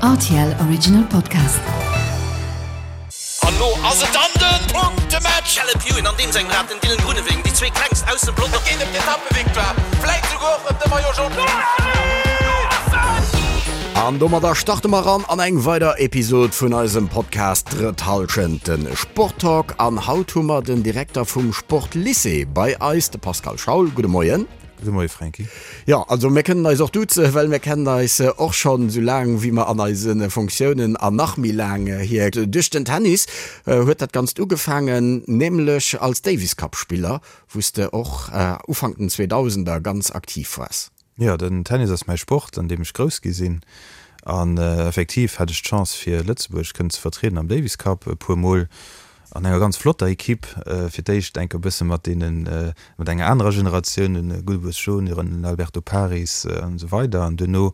Rtl Original Podcast. An lo ass et dann den Punktematch! Caleb Ewan an deem sengem Rad, den Dylan Groenewegen, déi zwee klengst aus dem Pelotong. Et geet ëm d'Etappevictoire, vläit souguer och ëm de Maillot Jaune. An domadder starte mer ran an eng weider Episod vun eisem Podcast Drëtt Hallschent, de Sporttalk. An haut hu mer den Direkter vum Sportlycée bei eis, de Pascal Schaul. Gudde Moien. Gudde Moie Franky. Jo, also mir kënnen eis och duzen, well mir kennen eis och schonn esou laang wéi mer an eise Fonctiounen an nach méi laang hier. Duerch den Tennis huet dat Ganzt ugefaangen, nämlech als Davis Cup Spiller, wou s de och Ufank den Zweedausender ganz aktiv waars. Jo, den Tennis ass mäi Sport, an deem ech grouss gi sinn. An effektiv hat ech d'Chance fir Lëtzebuerg kënnen ze vertrieden am Davis Cup e puer Mol. An enger ganz flotter Equipe, fir d'éischt enk e bësse mat deenen, mat enger anerer Generatioun, den Gulbes Junior, den Alberto Paris an esou weider an duerno.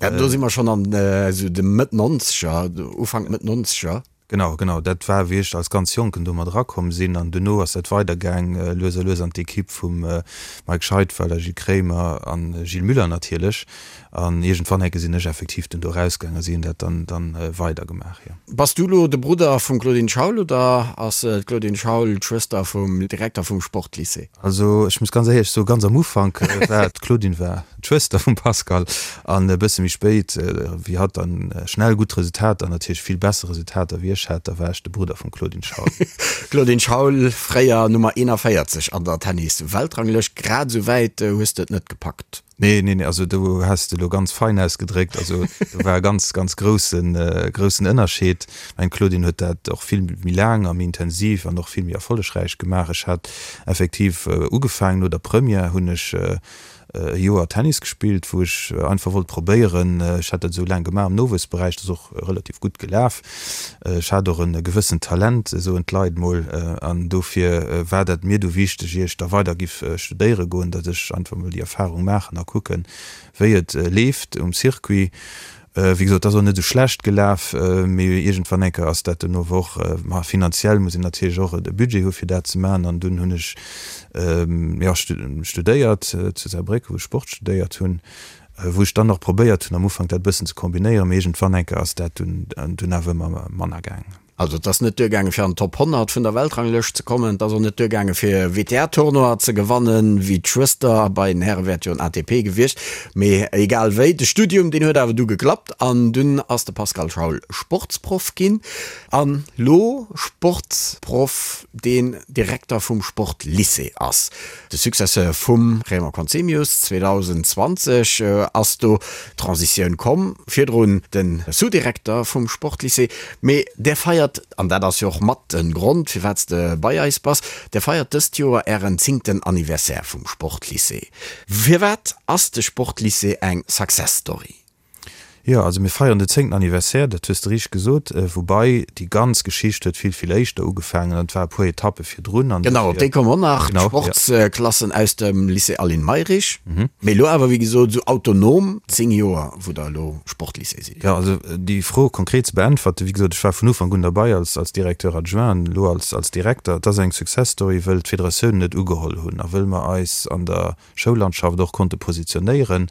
Ja, do si mer schonn an esou de Mëtt Nonzeger, Ufank Mëtt Nonzeger. Genau, genau, dat war wéi ech als ganz Jonken do mat erakomm sinn an duerno ass dat weidergaang lues a lues an d'Equipe vum Mike Scheidweiler, Gilles Kremer an Gilles Müller natierlech. An iergendwann enke sinn ech effektiv dunn do erausgaang a si hunn dat dann dann weidergemaach, jo. Bass du lo de Brudder vum Claudine Schaul oder ass d'Claudine Schaul d'Schwëster vum Direkter vum Sportlycée? Also ech muss ganz éierlech soen, ganz am Ufank war d'Claudine war d'Schwëster vum Pascal an e bësse méi spéit, wéi hatt dann schnell gutt Resultater an natierlech vill besser Resultater wéi ech hat, da war ech de Brudder vum Claudine Schaul. Claudine Schaul, fréier Nummer 41 an der Tennis-Weltranglëscht, grad esou wäit hues de et net gepackt. Nee, nee, nee, also do has de elo ganz fein ausgedréckt. Also do war e ganz, ganz groussen, groussen Ënnerscheed. Ech mengen, d'Claudine huet dat och vill méi laang a méi intensiv an och vill méi erfollegräich gemaach. Ech hat effektiv ugefaangen, no der Première hunn ech e Joer Tennis gespillt, wou ech einfach wollt probéieren, ech hat dat esou laang gemaach am Nowuessberäich, dat ass och relativ gutt gelaf. Ech hat och e gewëssent Talent, soen d'Leit mol, an dofir war dat mir du wichteg, ier ech da weider giff studéiere goen, datt ech einfach mol déi Erfahrung maachen a kucken, wéi et leeft um Circuit. Wéi gesot, et ass och net esou schlecht gelaf, mee iergendwann eng Kéier ass dat dunn ower och, ma finanziell muss een natierlech och e Budget hu fir dat ze maachen, an dunn hunn ech, jo, studéiert zu Saarbrécken, wou ech Sport studéiert hunn. Wou ech dann och probéiert hunn am Ufank dat e bëssen ze kombinéieren, mee iergendwann eng Kéier ass dat dunn dunn awer ëmmer manner gaangen. Also et ass net duergaange fir an d'Top 100 vun der Weltranglëscht ze kommen, et ass och net duergaange fir WTA-Tournoi ze gewannen, wéi d'Schwëster, bei den Häre wär et jo en ATP gewiescht, mee egal wéi, de Studium deen huet awer du geklappt an dunn ass de Pascal Schaul Sportsproff ginn an lo Sportsproff deen Direkter vum Sportlycée ass. De Successeur vum Raymond Conzemius, 2020 ass do d'Transitioun komm, virdrun de Sous-Direkter vum Sportlycée. Mee där feiert, an dat ass jo och mat de Grond firwat s de bei eis bass, där feiert dëst Joer ären zéngten Anniversaire vum Sportlycée. Firwat ass de Sportlycée eng Success Story? Jo, also mir feieren den zéngten Anniversaire, dat hues de richteg gesot. Woubai déi ganz Geschicht huet vill, vill éischter ugefaangen an et war e puer Etappe virdrun. An Genau, op déi komme mer nach, Genau, jo. d'Sportsklassen aus dem Lycée Aline Mayrisch. Mee elo awer, wéi gesot, esou autonom 10 Joer, wou der elo Sportlycée sidd. Jo, also déi Fro konkret ze beäntwerten, wéi gesot, ech war vun Ufank un derbei als, als Directeur adjoint an elo als, als Direkter. Et ass eng Success Story, wëll d'Federatiounen et ugeholl hunn a wëll mer eis an der Schoullandschaft och konnte positionéieren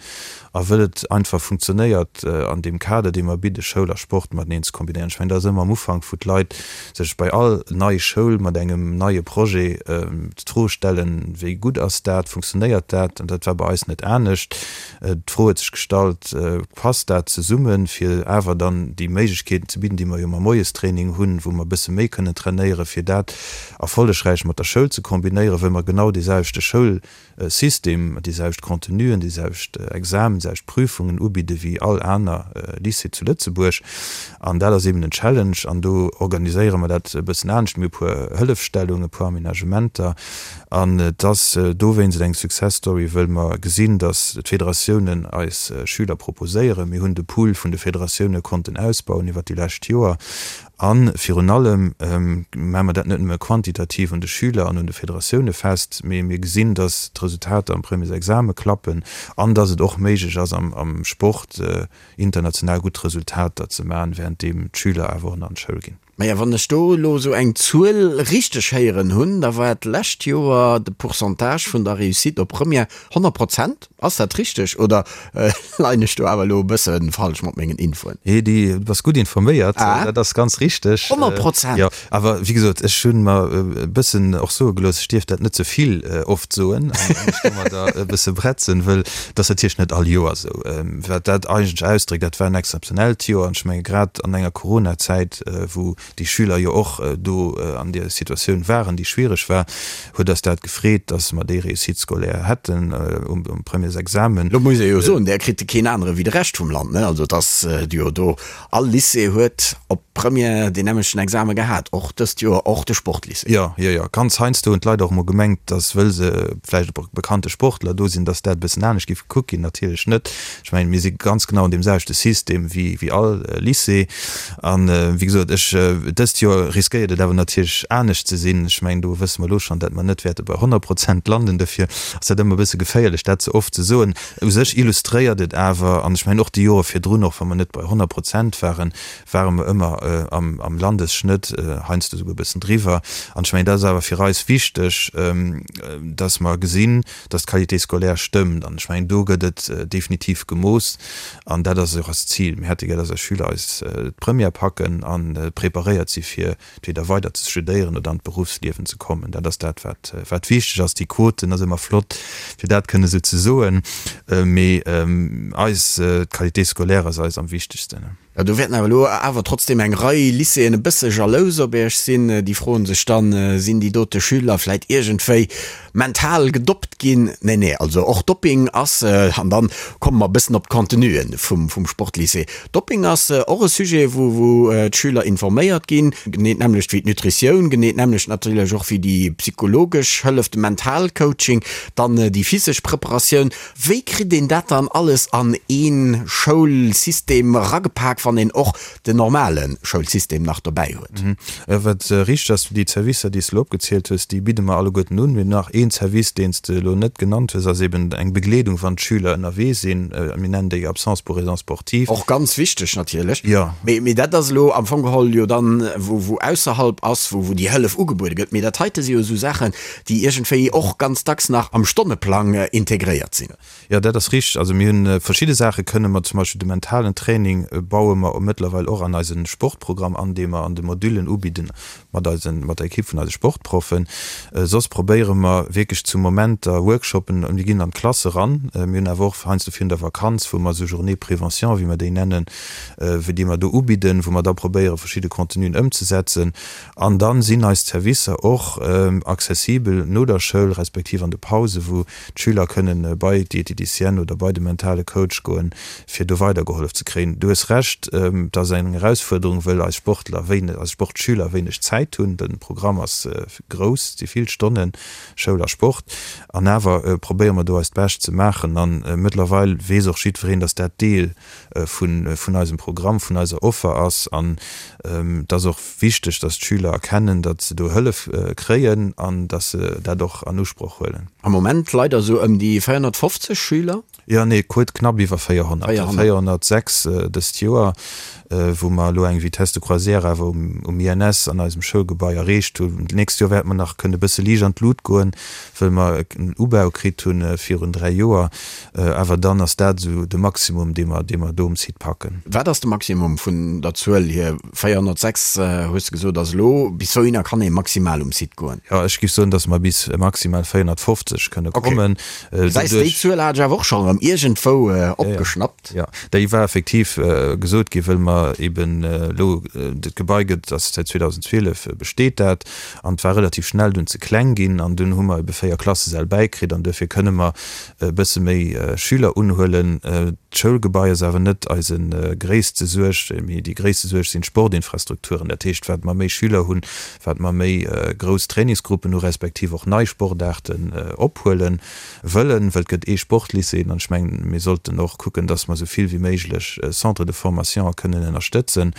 a wëll et einfach funktionéiert an deem Kader, dee mer bidde Schoul a Sport mateneen ze kombinéieren. Ech mengen, dat ass ëmmer am Ufank, wou d'Leit sech bei all nei Schoul mat engem neie Projet d'Fro stellen, wéi gutt ass dat, funktionéiert dat? An dat war bei eis net anescht. D'Fro huet sech gestallt, passt dat zesummen, fir awer dann déi Méiglechkeeten ze bidden, déi mer jo mam Moiestraining hunn, wou mer e bësse méi kënnen trainéieren, fir dat erfollegräich mat der Schoul ze kombinéieren, wëll mer genau dee selwechte Schoul System, déi selwecht Contenuen, déi selwecht Examen, déi selwecht Prüfungen ubidde wéi all aner Lycée zu Lëtzebuerg. An dat ass eben en Challenge. An do organiséiere mer dat e bëssen anescht. Mir hu e puer Hëllefstellungen, e puer Aménagementer. An et ass dowéinst eng Success Story, wëll mer gesinn, datt d'Federatiounen eis Schüler proposéieren. Mir hunn de Pool vun de Federatioune konnten ausbauen iwwert déi lescht Joer. A virun allem maache mer dat net nëmme quantitativ un de Schüler an un de Federatioune fest, mee mir gesinn, datt d'Resultater am Premiersexame klappen an datt et och méiglech ass, am Sport international gutt Resultater ze maachen, wärenddeem d'Schüler awer och nach an d'Schoul ginn. Maja, wann ech do elo esou eng Zuel richteg héieren hunn, da war d'lescht Joer de Pourcentage vun der Réussite op Première 100 Prozent. Ass dat richteg oder leien ech do awer elo e bësse falsch mat mengen Infoen? Nee, du bass gutt informéiert, dat ass ganz richteg. 100 Prozent? Jo, awer wéi gesot, ech hu mer e bëssen och soe gelooss, ech dierf dat net ze vill oft soen an mech domadder e bësse bretzen, wëll et ass natierlech net all Joer esou. Wat dat eigentlech ausdréckt, dat war en exzeptionellt Joer an ech menge grad an enger Coronazäit, wou déi Schüler jo och do an där Situatioun waren, déi schwiereg war, huet eis dat gefreet, datt mer déi Réussite scolaire hätten um Premièresexamen. Lo muss ee jo soen, där kritt keen anere wéi de Rescht vum Land, ne? Also et ass jo do, all Lycée huet op Première deen nämmlechten Exame gehat, och dëst Joer, och de Sportlycée. Jo, jo, jo. Ganz heiansdo hunn d'Leit och emol gemengt, datt wëll se vläicht e bekannte Sportler do sinn, datt dat e bëssen anescht géif gekuckt ginn. Natierlech net. Ech mengen, mir si ganz genau an deem selwechte System wéi wéi all Lycée. An, wéi gesot, ech, dëst Joer riskéiert et awer natierlech anescht ze sinn. Ech mengen, do wësse mer elo schonn, datt mer net wäerte bei 100 Prozent landen. Dofir ass dat ëmmer e bësse geféierlech, dat ze oft ze soen. U sech illustréiert et awer, an ech mengen och déi Jore virdrun, och wa mer net bei 100 Prozent waren, ware mer ëmmer am Landesschnëtt, heiansdo esouguer e bëssen driwwer. An ech mengen, dat ass awer fir eis wichteg, dass mer gesinn, dass d'Qualité scolaire stëmmt. An ech mengen, do gëtt et definitiv gemooss an dat ass och eist Zil. Mir hätte gär, dass eis Schüler eis d'Première packen a preparéiert si fir entweder weider ze studéieren oder an d'Beruffsliewen ze kommen. Dat ass dat, wat, wat wichteg ass. Déi Quoten ass ëmmer flott, fir dat kënne esou ze soen, mee eis, d'Qualité scolaire ass eis am wichtegsten. Jo, do wäerten awer elo awer trotzdem eng Rei Lycéeën e bësse jalous op Iech sinn. Déi froen sech dann, Sinn déi dote Schüler vläit iergendwéi mental gedoppt ginn? Nee, nee, also och Dopping ass, an dann komme mer e bëssen op d'Contenuen vum, vum Sportlycée, Dopping ass och e Sujet, wou, wou d'Schüler informéiert ginn, genee d'nämmlecht wéi d'Nutritioun, genee d'nämmlecht natierlech och wéi déi psychologesch Hëllef, de Mentalcoaching, dann déi physesch Preparatioun. Wéi kritt een dat dann alles an ee Schoulsystem eragepak, wann een och den normale Schoulsystem nach dobäi huet? Wat richteg ass, déi Zerwisser, déi s de elo opgezielt hues, déi bidde mer alleguerten un. Mir hunn nach een Service, deen s de elo net genannt hues, ass eben eng Begleedung, wann d'Schüler ënnerwee sinn. Mir nennen déi Absence pour raisons sportives. Och ganz wichteg natierlech. Jo. Mee dat ass elo am Fong geholl jo dann, wou wou ausserhalb ass, wou wou déi Hëllef ugebuede gëtt. Mee dat heite si jo esou Saachen, déi iergendwéi och ganz dacks nach am Stonneplang integréiert sinn. Jo, dat ass richteg. Also mir hunn verschidde Saache kënne mer, zum Beispill de mentalen Training baue mer mëttlerweil och an eise Sportprogramm an, dee mer an de Modüllen ubidden mat eisen, mat der Ekipp vun eise Sportproffen. Soss probéiere mer wierklech zu Momenter Workshoppen, mir ginn an d'Klass eran, mir hunn awer och heiansdo virun der Vakanz, wou mer esou Journées prévention, wéi mer déi nennen, wéi déi mer do ubidden, wou mer da probéiere verschidde Contenuen ëmzesetzen. An dann sinn eis Zerwisser och accessibel no der Schoul, respektiv an de Pause, wou d'Schüler kënnen bei d'Dieteticienne oder bei de mentale Coach goen, fir do weidergehollef ze kréien. Du hues Recht, et ass eng Erausfuerderung, wëll eis Sportler wéineg, eis Sportschüler wéineg Zäit hunn. De Programm ass grouss, et si vill Stonnen Schoul a Sport. An awer probéiere mer do eist Bescht ze maachen. A mëttlerweil weess och jiddwereen, dass dat Deel vun eisem Programm, vun eiser Offer ass. An et ass och wichteg, dass d'Schüler erkennen, datt se do Hëllef kréien an datt se dat och an Usproch huelen. Am Moment leider esou ëm déi 450 Schüler? Jo, nee, kuert knapp iwwer 400, 406 dëst Joer, wou mer elo eng Vitesse de croisière awer um INS an eisem Schoulgebai erreecht hunn. D'nächst Joer wäerte mer nach kënne e bësse liicht an d'Lut goen, wëll mer en Ubau kritt hunn virun 3 Joer. Awer dann ass dat esou de Maximum, dee mer, dee mer do um Site packen. Wat ass de Maximum vun der Zuel hier? 406 hues de gesot ass elo. Bis wouhinner kann ee maximal um Site goen? Jo, ech géif soen, datt mer bis maximal 450 kënne kommen. Gesäis, déi Zuel hat ech awer och schonn erëm iergendwou opgeschnappt. Jo, déi war effektiv gesot ginn, wëll mer eben elo, dat Gebai gëtt, ass säit 2012 besteet dat, an et war relativ schnell dunn ze kleng ginn an dunn hu mer ebe 4 Klassesäll bäikritt an duerfir kënne mer e bësse méi Schüler unhuelen. D'Schoulgebai ass awer net eise gréisste Suerg, mee déi gréisste Suerg sinn d'Sportinfrastrukturen. Dat heescht, wat mer méi Schüler hunn, wat mer méi grouss Trainingsgruppen hu respektiv och nei Sportaarten ophuele wëllen, well et gëtt ee Sportlycée. Ech mengen, mir sollten och kucken, dass mer esou vill wéi méiglech Centres de formation kënnen ënnerstëtzen.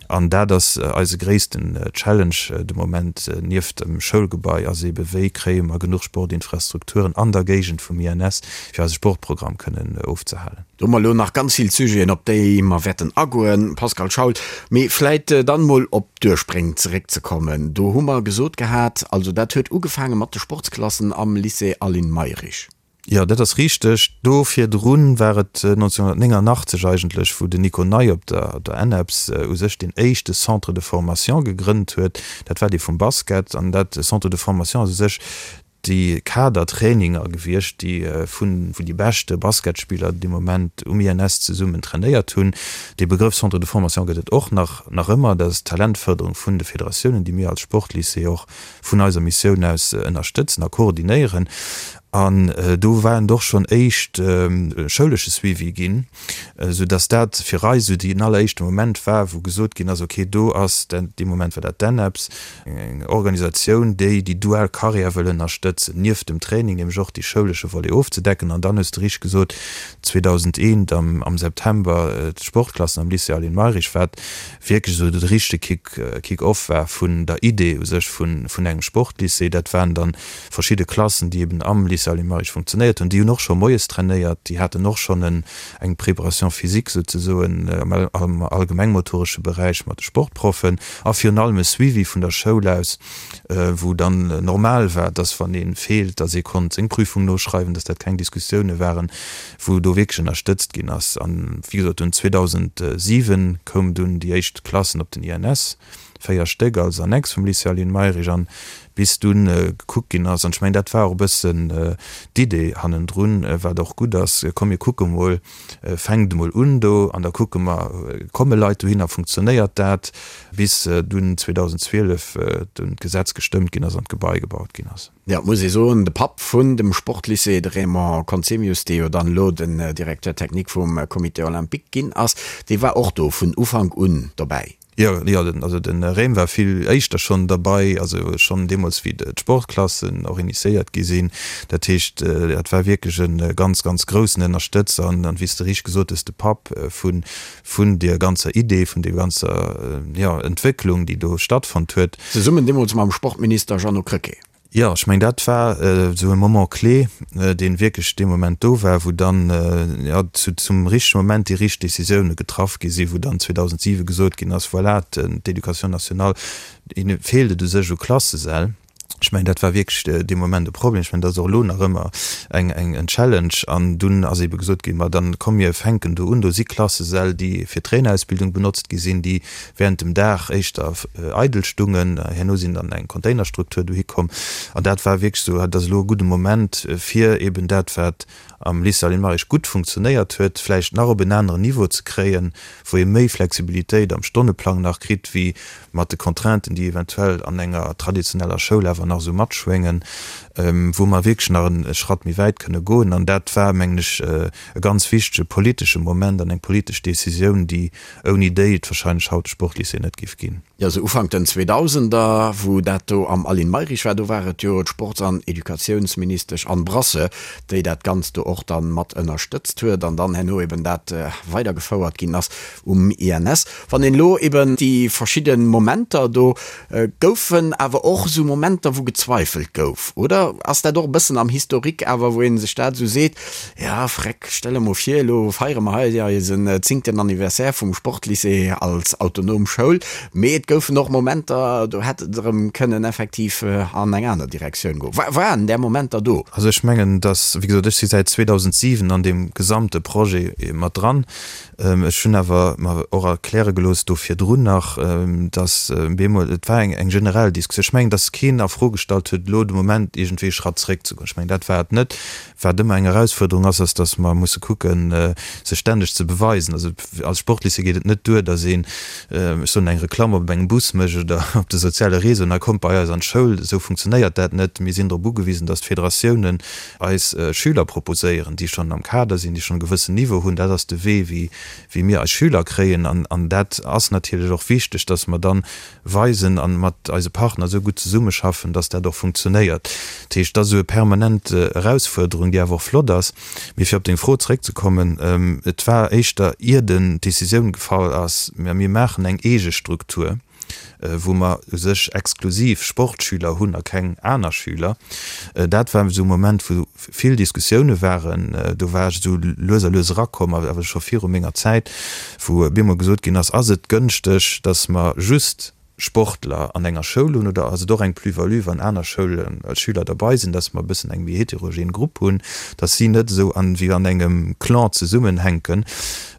An dat ass eise gréissten Challenge de Moment, nieft dem Schoulgebai, ass eebe wéi kréie mer genuch Sportinfrastrukturen an der Géigend vum INS, fir eise Sportprogramm kënnen ofzehalen. Do hu mer elo nach ganz vill Sujeten, op déi mer wäerten agoen, Pascal Schaul. Mee vläit dann emol op d'Urspréng zeréckzekommen. Do hu mer gesot gehat, also dat huet ugefaange mat de Sportsklassen am Lycée Aline Mayrisch. Jo, dat ass richteg. Do virdrun war et 1989 eigentlech, wou den Nico Ney op der der ENEPS u sech deen éischte Centre de formation gegrënnt huet. Dat war dee vum Basket. An dat Centre de formation ass u sech déi Kadertraininger gewiescht, déi vun wou déi beschte Basketspiller dee Moment um INS zesummen trainéiert hunn. Dee Begrëff Centre de formation gëtt et och nach nach ëmmer. Dat ass d'Talentfërderung vun de Federatiounen, déi mir als Sportlycée och vun eiser Missioun aus ënnerstëtzen a koordinéieren. An do war et och schonn éischt schoulesche Suivi ginn, esou dass dat fir eis esou deen alleréischte Moment war, wou gesot ginn ass, okay, do ass, dee Moment war dat d'ENEPS, eng Organisatioun, déi déi dual Carrière wëll ënnerstëtzen, nieft dem Training nämlech och dee schoulesche Volet ofzedecken. An dann hues de richteg gesot, 2001 am September d'Sportklassen am Lycée Aline Mayrisch, wat wierklech esou de richtege Kick, Kick-off war vun der Idee u sech vun engem Sportlycée. Dat waren dann verschidde Klassen, déi eben am Lycée Aline Mayrisch funktionéiert hunn. Déi hunn och scho moies trainéiert, déi haten och schonn en, eng Préparation physique souzesoen am allgemengmotoresche Beräich mat de Sportproffen a virun allem e Suivi vun der Schoul aus, wou dann normal war, dass wann ee feelt, dass ee konnt seng Prüfung noschreiwen, dass dat keng Diskussioune waren, wou do wierklech ënnerstëtzt ginn ass. An wéi gesot, dunn 2007 koum dunn déi éischt Klassen op den INS, 4 Stéck als Annex vum Lycée Aline Mayrisch, an bis dunn gekuckt ginn ass, an ech mengen, dat war och e bëssen d'Idee hannendrun, wat och gutt ass, komm mir kucke mol, fänkt emol un do an da kucke mer, komme Leit dohinner, funktionéiert dat, bis dunn 2012 dunn d'Gesetz gestëmmt ginn ass an d'Gebai gebaut ginn ass. Jo, et muss ee soen, de Papp vun dem Sportlycée, de Raymond Conzemius, dee jo dann elo den Directeur technique vum Comité olympique ginn ass, dee war och do vun Ufank un dobäi. Jo, jo, also de Raym war vill éischter schonn derbei, also schonn deemools wéi d'Sportklassen och initiéiert gi sinn. Dat heescht, dat war wierklech e ganz, ganz groussen Ënnerstëtzer an, wéi s de richteg gesot hues, de Papp vun, vun deer ganzer Idee, vun deer ganzer, jo, Entwécklung, déi do stattfonnt huet. Zesummen deemools mam Sportminister Jeannot Krecké. Jo, ech mengen, dat war esou e Moment clé, dee wierklech dee Moment do war, wou dann, jo, zum richtege Moment déi richteg Décisioune getraff gi sinn, wou dann 2007 gesot ginn ass, voilà, d'Éducation nationale, hinne feelt et u sech u Klassesäll. Ech mengen, dat war wierklech dee Moment e Problem. Ech mengen, dat ass och elo nach ëmmer eng, eng, en Challenge. An dunn ass eebe gesot ginn, ma dann komm mir fänken do un, do si Klassesäll, déi fir d'Trainerausbildung benotzt gi sinn, déi während dem Dag éischter eidel stungen. Herno sinn dann eng Containerstruktur dohi komm. An dat war wierklech esou, dat ass elo e gudde Moment, fir eben dat, wat am Lycée Aline Mayrisch gutt funktionéiert huet, vläicht nach op en aneren Niveau ze kréien, wou ee méi Flexibilitéit am Stonneplang nach kritt, wéi mat de Contrainten, déi eventuell an enger traditioneller Schoul awer nach esou matschwéngen, wou mer wierklech nach e Schratt méi wäit kënne goen. An dat war, mengen ech, e ganz wichtege politesche Moment an eng politesch Décisioun, déi ouni déi et wahrscheinlech haut de Sportlycée net géif ginn. Jo, sou Ufank den Zweedausender, wou dat do am Aline Mayrisch war, do war et jo d'Sports an Educatiounsministesch Anne Brasseur, déi dat Ganzt do och dann mat ënnerstëtzt huet an dann herno eben dat weidergefouert ginn ass um INS. Wann een elo eben déi verschidde Momenter do, goufen awer och esou Momenter, wou gezweifelt gouf, oder ass dat och e bëssen am Historique awer, wou ee sech dat esou seet, Ja, freck, stell der mol vir, elo feiere mer hei eisen zéngten Anniversaire vum Sportlycée als autonom Schoul, mee et goufen och Momenter, do hätt et erëm kënnen effektiv an eng aner Direktioun goen. Waren där Momenter do? Also ech mengen, dass, wéi gesot, ech si säit 2007 an deem gesamte Projet mat dran. Ech hunn awer mer och erkläre gelooss do virdrun nach, dass bemol, et war eng generell Diskussioun, ech mengen, dass keen a Fro gestallt huet, elo de Moment iergendwéi e Schratt zréckzegoen. Ech mengen, dat war et net. Wat ëmmer eng Erausfuerderung ass, ass, dass mer musse kucken, sech stänneg ze beweisen. Also als Sportlycée geet et net duer, dass een, ech soen, eng Reklamm op engem Bus mécht oder op de soziale Réseauen a kommt bei eis an d'Schoul. Esou funktionéiert dat net. Mir sinn drop ugewisen, dass d'Federatiounen eis Schüler proposéieren, déi schonn am Kader sinn, déi schonn e gewëssen Niveau hunn. Dat ass de Wee, wéi wéi mir eis Schüler kréien. An dat ass natierlech och wichteg, dass mer dann weisen a mat eise Partner esou gutt zesummeschaffen. schaffen, dass dat och funktionéiert. Dat heescht, dat ass esou e permanent Erausfuerderung, déi awer och flott ass. Mee fir op deng Fro zeréckzekommen, Et war éischter, ier den d'Decisioun gefall ass, mä mir maachen eng eege Struktur, wou mer u sech exklusiv Sportschüler hunn a keng aner Schüler. Dat war esou e Moment, wou vill Diskussioune waren. Do war ech esou lues a lues erakomm, awer scho viru menger Zäit, wou op eemol gesot ginn ass, Ass et gënschteg, datt mer just Sportler an enger Schoul hunn oder ass et och eng Plus-value, wann aner Schoulen Schüler derbei sinn, dass mer e bëssen eng méi heterogen Grupp hunn, dass si net esou an wéi an engem Clan zesummenhänken.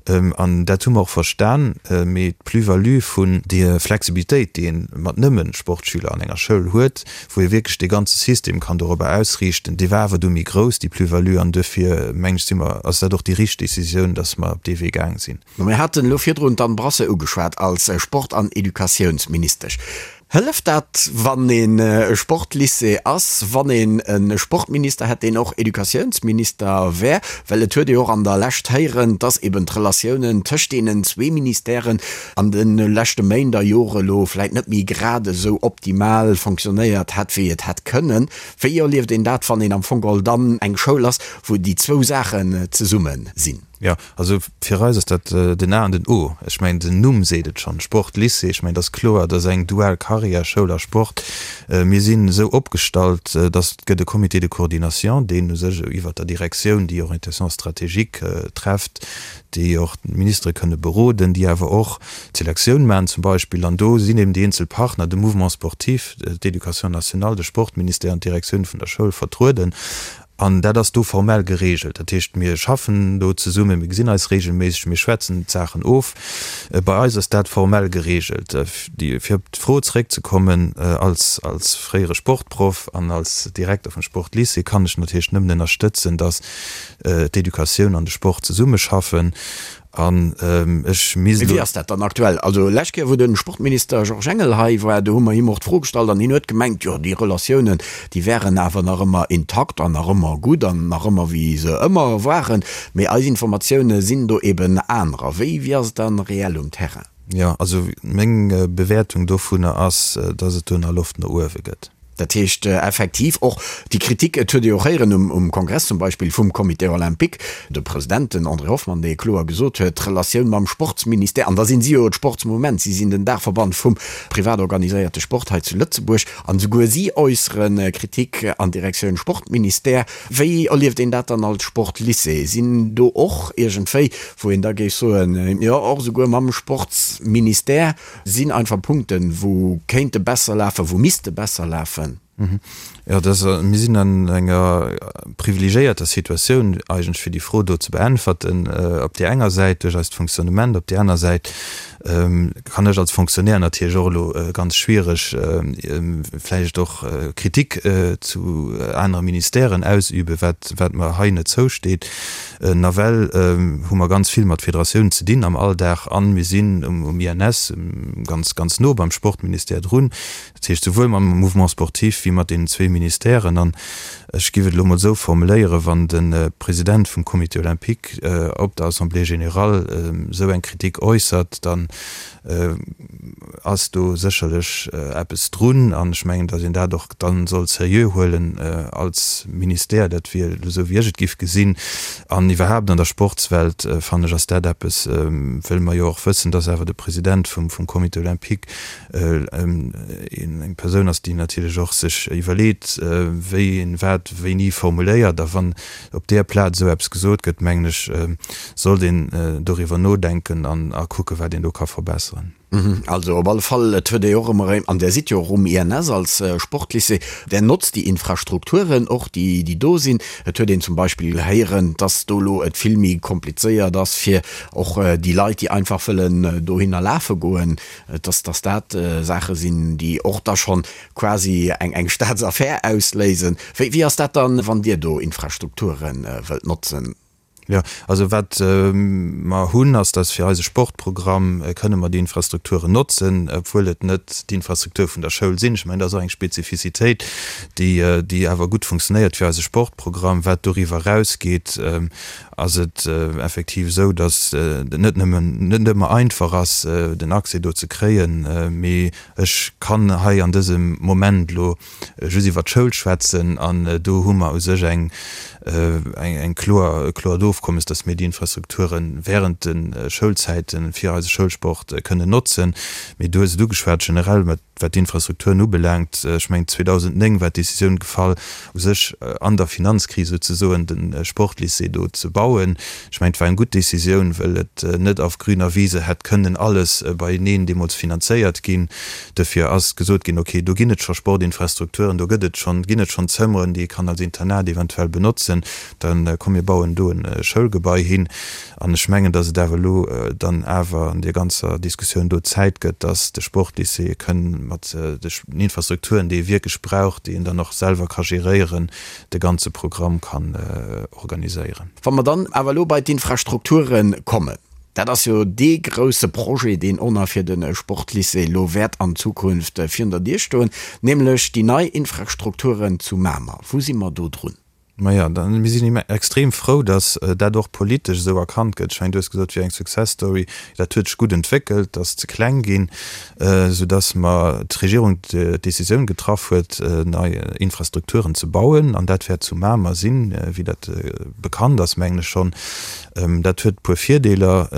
An dat hu mer och verstan. Mee d'Plus-value vun der Flexibilitéit, déi ee mat nëmme Sportschüler an enger Schoul huet, wou ee wierklech dee ganze System kann dorobber ausriichten, déi war awer du méi grouss, déi Plus-value. An duerfir, mengen ech, si mer, ass dat och déi richteg Décisioun, dass mer op dee Wee gaang sinn. Mir haten elo virdrun d'Anne Brasseur ugeschwat als Sport an Educatiounsministesch. Hëlleft dat, wann een e Sportlycée ass, wann een e Sportminister hätt, deen och Educatiounsminister wär? Well et huet ee och an der Lescht héieren, dass eben d'Relatiounen tëscht deenen zwee Ministèren an de leschte Méint a Jore elo vläit net méi grad esou optimal fonctionnéiert hätt, wéi et hätt kënnen. Wéi erlieft een dat, wann een am Fong geholl dann eng Schoul ass, wou déi zwou Saachen zesumme sinn? Jo, also fir eis ass dat den A an den O. Ech mengen, den Numm seet et schonn, Sportlycée. Ech mengen, et ass kloer, et ass eng dual Carrière, Schoul a Sport. Mir sinn esou opgestallt, datt et gëtt e Comité de coordination, deen u sech iwwert der Direktioun déi Orientation stratégique trefft, déi och d'Ministere kënne beroden, déi awer och d'Selektioun maachen zum Beispill. An do sinn eben déi eenzel Partner, de Mouvement sportif, d'Éducation nationale, de Sportministère an d'Direktioun vun der Schoul vertrueden. An dat ass do formell geregelt. Dat heescht, mir schaffen do zesummen, mir gesinn eis regelméisseg, mir schwätzen d'Saachen of. Bei eis ass dat formell geregelt. Fir op d'Fro zeréckzekommen, als als fréiere Sportproff an als Direkter vum Sportlycée kann ech natierlech nëmmen ënnerstëtzen, datt d'Educatioun an de Sport zesummeschaffen. An ech misst elo. Wéi ass dat dann aktuell? Also lescht Kéier, wou de Sportminister Georges Engel hei war, do hu mer him och d'Fro gestallt an hien huet gemengt, jo déi Relatiounen, déi wären awer nach ëmmer intakt an nach ëmmer gutt an nach ëmmer wéi se ëmmer waren. Mee eis Informatioune sinn do eben anerer. Wéi, wéi ass et dann reell um Terrain? Jo, also meng Bewäertung dovunner ass, dass et do nach Loft no uewe gëtt. Dat heescht effektiv och déi Kritik, et huet ee jo och héieren um Kongress zum Beispill vum Comité olympique, de President, den André Hoffmann, dee kloer gesot huet, d'Relatioun mam Sportsministère, an da sinn si jo d'Sportsmouvement, si sinn den Daachverband vum privat organiséierte Sport hei zu Lëtzebuerg, an esouguer si äussere Kritik an Direktioun Sportministère. Wéi erlieft een dat dann als Sportlycée? Sinn do och iergendwéi, wou een da géif soen, jo och esouguer mam Sportsministère, Sinn einfach Punkten, wou kéinte besser lafen, wou misste besser lafen. Jo, dat ass, mir sinn an enger privilegiéierter Situatioun eigentlech, fir déi Fro do ze beäntwerten. Op där enger Säit duerch eist Fonctionnement, op där aner Säit kann ech als Fonctionnaire natierlech och elo ganz schwiereg vläicht och Kritik zu anere Ministèren ausüben, wat, wat mer hei net zousteet. Nawell hu mer ganz vill mat Federatiounen ze dinn am Alldag an mir sinn um INS ganz, ganz no beim Sportministère drun. Dat heescht souwuel mam Mouvement sportif wéi mat deenen zwee Ministèren. An ech géif et elo mol esou formuléieren, Wann de President vum Comité olympique op der Assemblée générale esou eng Kritik äussert, dann ass do sécherlech eppes drun an ech mengen, datt een dat och dann soll seriö huelen als Ministère. Dat wier elo esou, wéi ech et giff gesinn. An iwwerhaapt an der Sportswelt, fannen ech, ass dat eppes, wëll mer jo och wëssen, datt awer de President vum Comité olympique eng Persoun ass, déi natierlech och sech iwwerleet, wéi een wat wéini formuléiert. A wann op där Plaz esou eppes gesot gëtt, mengen ech, sollt een doriwwer nodenken an a kucken, wat een do ka verbesseren. Also op alle Fall, et huet ee jo och ëmmer erëm, an Där sidd jo och um INS als Sportlycée, Där notzt déi Infrastrukturen och, déi déi do sinn. Et huet een zum Beispill héieren, dass do elo et vill méi komplizéiert ass fir och déi Leit, déi einfach wëllen dohinner lafe goen, dass dass dat Saache sinn, déi och da schonn quasi eng eng Staatsaffär ausléisen. Wéi wéi ass dat dann, wann Dir do Infrastrukture wëllt notzen? Jo, also wat mer hunn, ass, dass fir eise Sportprogramm kënne mer déi Infrastrukturen notzen, obwuel et net d'Infrastruktur vun der Schoul sinn. Ech mengen, dat ass och eng Spezifizitéit, déi déi awer gutt funktionéiert fir eise Sportprogramm. Wat doriwwer erausgeet. Ass et effektiv esou, datt et net nëmmen, net ëmmer einfach ass, den Accès do ze kréien. Mee ech kann hei an dësem Moment elo just iwwert d'Schoul schwätzen an do hu mer u sech eng, eng kloer, e kloert Ofkommes, datt mir déi Infrastrukture während de Schoulzäite fir eise Schoulsport kënnen notzen. Mee du hues et ugeschwat, generell mat Wat d'Infrastrukturen ubelaangt, ech mengen 2009 war d'Décisioun gefall, u sech an der Finanzkris souzesoen de Sportlycée do ze bauen. Ech mengen, et war eng gutt Décisioun, well et net auf grüner Wiese hätt kënnen alles beieneen deemools finanzéiert ginn. Duerfir ass gesot ginn, okay, do ginn et scho Sportinfrastrukturen, do gëtt et schonn, ginn et schonn Zëmmeren, déi ee kann als Internat eventuell benotzen, da komm mir bauen do e Schoulgebai hin. An ech mengen, dass et awer elo dann awer an deer ganzer Diskussioun do Zäit gëtt, dass de Sportlycée kënn mat den Infrastrukturen, déi e wierklech brauch, déi en dann och selwer ka geréieren, de ganze Programm kann organiséieren. Wa mer dann awer elo bei d'Infrastrukture kommen, dat ass jo dee grouse Projet, deen och nach fir de Sportlycée elo wäert an Zukunft virun der Dier stoen, nämlech déi nei Infrastrukturen zu Mamer. Wou si mer do drun? Maja, dann, mir sinn extrem frou, datt dat och politesch esou erkannt gëtt. Ech mengen, du hues gesot, et wier eng Success Story. Dat huet sech gutt entwéckelt, ass ze kleng ginn, soudatt mer d'Regierung d'Décisioun getraff huet, nei Infrastrukturen ze bauen. An dat wäert zu Mamer sinn, wéi dat bekannt ass, mengen ech schonn. Dat huet e puer Virdeeler.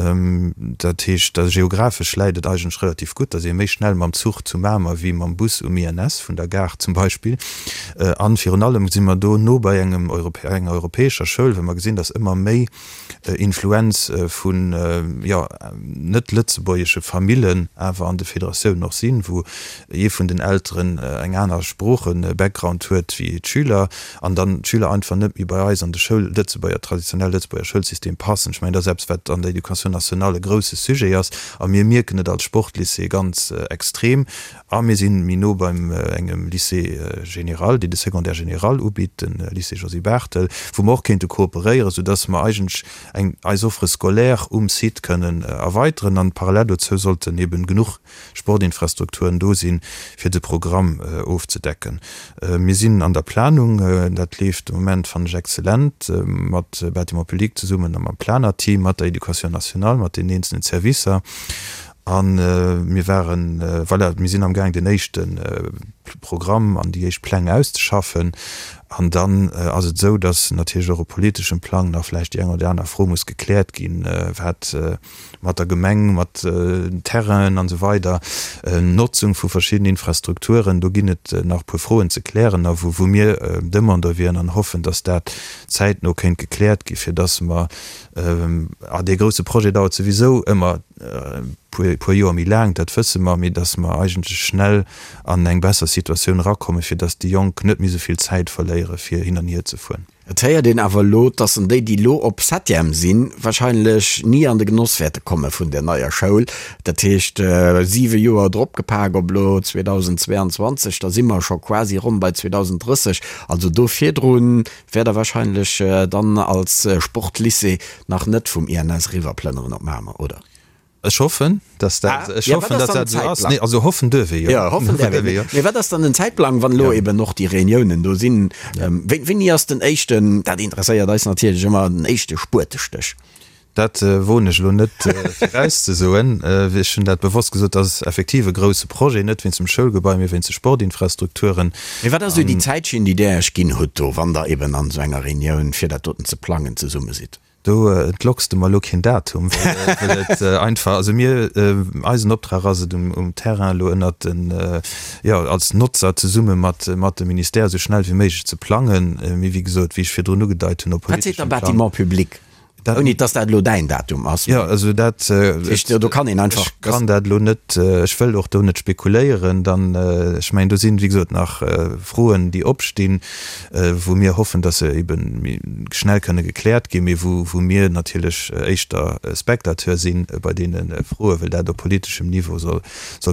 Dat heescht, geographesch läit et eigentlech relativ gutt, da si ee méi schnell mam Zuch zu Mamer wéi mam Bus um INS vun der Gare zum Beispill. An virun allem si mer do no bei engem enger europäescher Schoul, well mer gesinn, datt ëmmer méi Influenz vun, jo, net lëtzebuergesche Famillen awer an de Federatiounen och sinn, wou ee vun den Elteren eng aner Sprooche-Background huet wéi d'Schüler an dann d'Schüler einfach net méi bei eis an de Schoul, Lëtzebuerger, traditionell Lëtzebuerger Schoulsystem passen. Ech mengen, dat ass eppes, wat an der Éducation nationale e grouse Sujet ass a mir mierken et als Sportlycée ganz extrem a mir si méi no beim engem Lycée général, deen de Secondaire général ubitt, de Lycée Josy Barthel, wou mer och kéinte kooperéieren, soudass mer eigentlech eng eis Offre scolaire um Site kënnen erweiteren an parallel dozou sollten eben genuch Sportinfrastrukturen do sinn, fir de Programm ofzedecken. Mir sinn an der Planung, dat leeft de Moment, fannen ech, exzellent, mat Bâtiments publics zesummen a mam Planerteam, mat der Éducation nationale, mat den eenzelnen Servicer. A mir waren, voilà, mir sinn amgaang den éischte Programm an déi éischt Pläng auszeschaffen. An dann ass et esou, datt natierlech och op politeschem Plang nach vläicht déi eng oder déi aner Fro muss gekläert ginn, wat mat der Gemeng, mat Terrainen an esou weider, Notzung vu verschiddenen Infrastrukturen, do ginn et nach e puer Froen ze klären a wou mir Demandeur wieren an hoffen, dass dat zäitno kéint gekläert gi fir dass mer, a dee grouse Projet dauert souwisou ëmmer e puer Joer méi laang, dat wësse mer, mee dass mer eigentlech schnell an eng besser Situatioun erakommen, fir dass déi Jonk net méi esou vill Zäit verléiere fir hin an hier ze fueren. Et héiert een awer elo, dass en déi, déi elo op Septième sinn, wahrscheinlech ni an de Genoss wäerte komme vun där neier Schoul. Dat heescht, siwe Joer dropgepak op elo 2022, da si mer scho quasi ronn bei 2030. Also do virdru wäert Der wahrscheinlech dann als Sportlycée nach net vum INS eriwwerplënneren op Mamer, oder? Ech hoffen, dass dat, ech hoffen, dass dat esou ass. Nee, also hoffen duerf ee jo. Jo, hoffen däerf een. Jo. Mee wat ass dann den Zäitplang, wann elo eben och déi Reuniounen do sinn? Wéini ass den éischten, dat interesséiert eis natierlech ëmmer, den éischte Spuetestéch? Dat woen ech elo net virauszesoen. Ech hunn dat bewosst gesot, dat ass effektiv e grouse Projet, net wéinst dem Schoulgebai, mee wéinst de Sportinfrastrukturen. Mee wat ass esou déi Zäitschinn, déi Där Iech ginn hutt do, wann Der eben an esou enger Reunioun, fir dat doten ze plangen, zesumme sidd? Do entlocks de mer elo keen Datum, well et einfach, also mir, eisen Optrag ass et um Terrain elo ënnert den, jo, als Notzer zesumme mat mat dem Ministère esou schnell wéi méiglech ze plangen. Mee wéi gesot, wéi ech virdrun ugedeit hunn, op politeschem Plang. Wat seet der Bâtiment public? Ouni dass dat elo däin Datum ass. Jo, also dat, do kann een einfach. Ech kann dat elo net, ech wëll och do net spekuléieren. Dann, ech mengen, do sinn, wéi gesot, nach Froen, déi opstinn. wou mir hoffen, dass se ebe méi schnell kënne gekläert ginn, mee wou mir natierlech éischter Spectateur si bei deene Froen, well dat op politeschem Niveau soll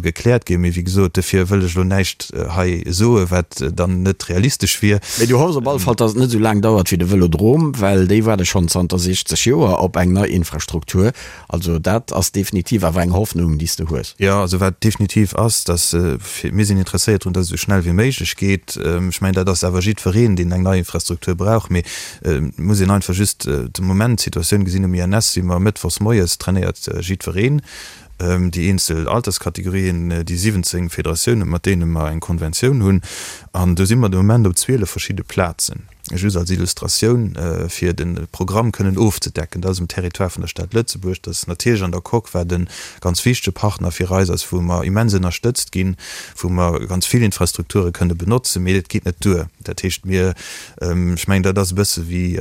gekläert ginn. Mee wéi gesot, dofir wëll ech elo näischt hei soen, wat dann net realistesch wier. Mee du hoffs op alle Fall, dass et net esou laang dauert wéi de Vëlodrom, well déi waarde schonn zanter 60. Joer op eng nei Infrastruktur. Also dat ass definitiv awer eng Hoffnung, déi s de hues. Jo, also wat definitiv ass, dass, mir sinn interesséiert drun, dass et esou schnell wéi méiglech geet. Ech mengen, dat ass awer jiddwereen, deen eng nei Infrastruktur brauch. Mee et muss een einfach just de Moment d'Situatioun gesinn. Um INS si mer mëttwochs moies, trainéiert jiddwereen, déi eenzel Alterskategorien, déi 17 Federatiounen, mat deene mer eng Konventioun hunn. An do si mer de Moment op 12 verschidde Plazen. Just als Illustratioun, fir de Programm kënnen ofzedecken, dat ass um Territoire vun der Stad Lëtzebuerg, dat ass natierlech an der Coque, wat e ganz wichtege Partner fir eis ass, wou mer immens ënnerstëtzt ginn, wou mer ganz vill Infrastrukture kënne benotzen, mee et geet net duer. Dat heescht, mir, ech mengen, dat ass e bësse wéi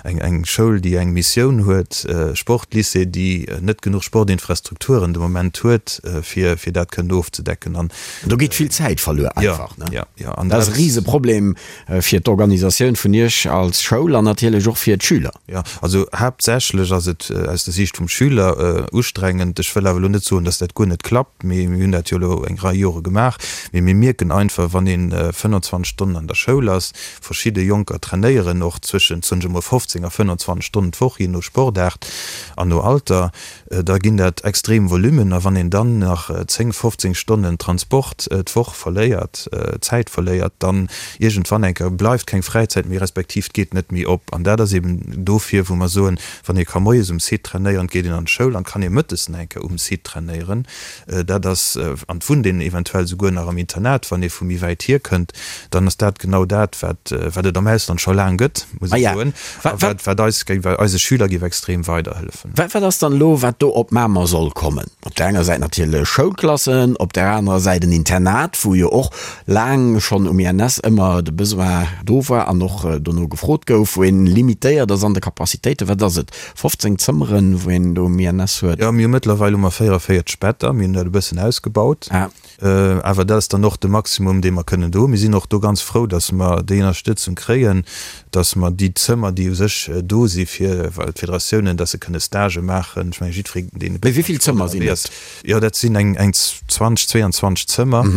eng Schoul, déi eng Missioun huet, e Sportlycée, déi net genuch Sportinfrastrukturen de Moment huet, fir dat kënnen ofzedecken. An do geet vill Zäit verluer einfach, ne? Jo, jo. Dat ass e Riseproblem. Fir d'Organisatioun vun Iech als Schoul an natierlech och fir d'Schüler. Jo, also haaptsächlech ass et aus der Siicht vum Schüler ustrengend. Ech wëll awer elo net soen, dass dat guer net klappt, mee mir hunn dat jo elo eng Rei Jore gemaach. Mee mir mierken einfach, wann ee 25 Stonnen an der Schoul ass, verschidde Jonker trainéieren och zwëschent, soen ech emol, 15 a 25 Stonnen d'Woch, jee no Sportaart an no Alter, da ginn dat extrem Volummen. A wann een dann nach 10, 15 Stonnen Transport d'Woch verléiert, Zäit verléiert, dann iergendwann eng Kéier bleift keng Fräizäit méi, respektiv et geet net méi op. An dat ass eben dofir, wou mer soen, wann ee ka moies um Site trainéieren, geet een an d'Schoul an kann ee mëttes nach eng Kéier um Site trainéieren. Dat ass, an et wunnt een eventuell souguer nach am Internat, wann ee vu méi wäit hierkënnt, dann ass dat genau dat, wat, wat et am Ausland scho laang gëtt, muss ech soen, a wat, wat eis géif, eise Schüler géif extrem weiderhëllefen. Wat, wat ass dann elo, wat do op Mamer soll kommen? Op där enger Säit natierlech Schoulklassen, op där anerer Säit en Internat, wou jo och laang schonn um INS ëmmer de Besoin do war an och dono gefrot gouf, wou een limitéiert ass an de Capacitéiten. Wat ass et, 15 Zëmmeren, wou een do um INS huet? Jo, mir hu mëttlerweil hu mer 44 Better, mir hunn dat e bëssen ausgebaut. Awer dat ass dann och de Maximum, dee mer kënnen do hunn. Mir sinn och do ganz frou, dass mer déi Ënnerstëtzung kréien, dass mer déi Zëmmer, déi u sech do si fir d'Federatiounen, dass se kënne Stagë maachen. Ech mengen, jiddweree, deen e Mee wéi vill Zëmmer sinn et? Jo, dat sinn eng 20, 22 Zëmmer.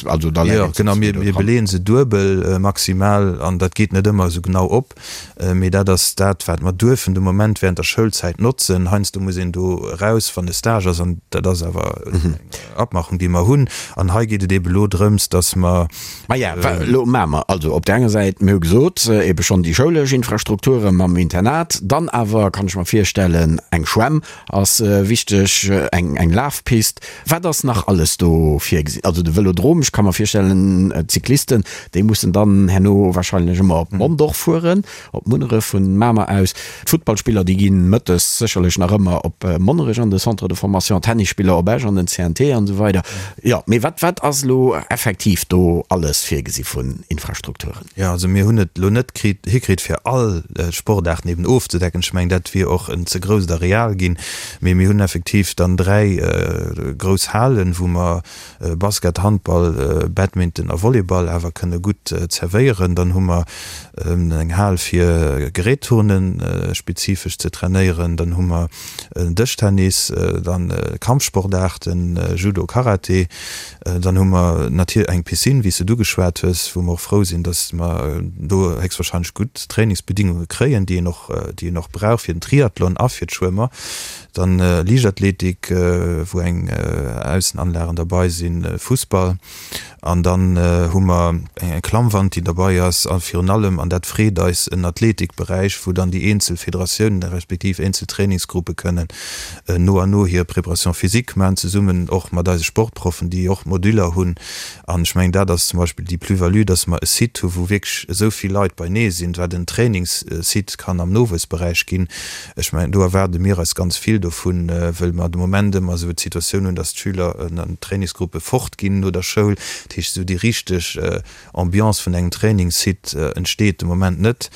Also da läit een zu zwee do dran. Jo, genau, mir beleeën se duebel maximal an dat geet net ëmmer esou genau op. Mee dat ass dat, wat mer duerfen de Moment während der Schoulzäit notzen. Heiansdo muss een do eraus, wann e Stage ass, an dat ass awer eng Abmachung, déi mer hunn. An hei geet et eebe elo drëms, dass mer. Maja, elo maache mer also op där enger Säit, mir hu gesot, eebe schonn déi schoulesch Infrastrukture mam Internat, dann awer, kann ech mer virstellen, eng Schwämm ass wichteg, eng Lafpist. Wat ass nach alles do virgesinn? Also de Vëlodrom, ech ka mer virstellen, d'Cyclisten, déi mussen dann herno wahrscheinlech ëmmer op Mondorf fueren, op Munneref vun Mamer aus. D'Futtballspiller, déi gi mëttes sécherlech nach ëmmer op Monnerech an de Centre de formation, d'Tennisspiller op Esch an den CNT an esou weider. Jo, mee wat, wat ass elo effektiv do alles virgesi vun Infrastrukturen? Jo, also mir hunn et elo net kritt, hikritt fir all Sportaarten eben ofzedecken. Ech mengen, dat wier och en ze grousst Areal ginn. Mee mir hunn effektiv dann 3 grouss Halen, wou mer Basket, Handball, Badminton a Volleyball awer kënne gutt zerwéieren. Dann hu mer eng Hal fir Gerätturnen spezifesch ze trainéieren. Dann hu mer Dëschtennis, dann Kampfsportaarten, Judo, Karate. Dann hu mer natierlech eng Piscine, wéi s de et ugeschwat hues, wou mer och frou sinn, dass mer do héchstwahrscheinlech gutt Trainingsbedingunge kréien, déi een och, déi een och brauch fir den Triathlon a fir d'Schwëmmer. Dann Liichtathletik, wou eng Aussenanlagen derbei sinn, Fussball. An dann hu mer eng Klammwand, déi derbei ass. A virun allem, an dat freet eis, en Athletikberäich, wou dann déi eenzel Federatiounen respektiv eenzel Trainingsgruppe kënnen no an no hir Préparation physique maachen, zesummen och mat eise Sportproffen, déi och Moduler hunn. An ech mengen, dat ass zum Beispill déi Plus-value, dass mer e Site hu wou wierklech esou vill Leit beinee sinn, wat en Trainingssite kann am Nowuessberäich ginn. Ech mengen, do erwaarde mir eis ganz vill dovun, wëll mer de Moment ëmmer esou d'Situatioun hunn, dass d'Schüler an d'Trainingsgruppe fortginn no der Schoul. Dat heescht, esou déi richteg Ambiance vun engem Trainingssite entsteet de Moment net.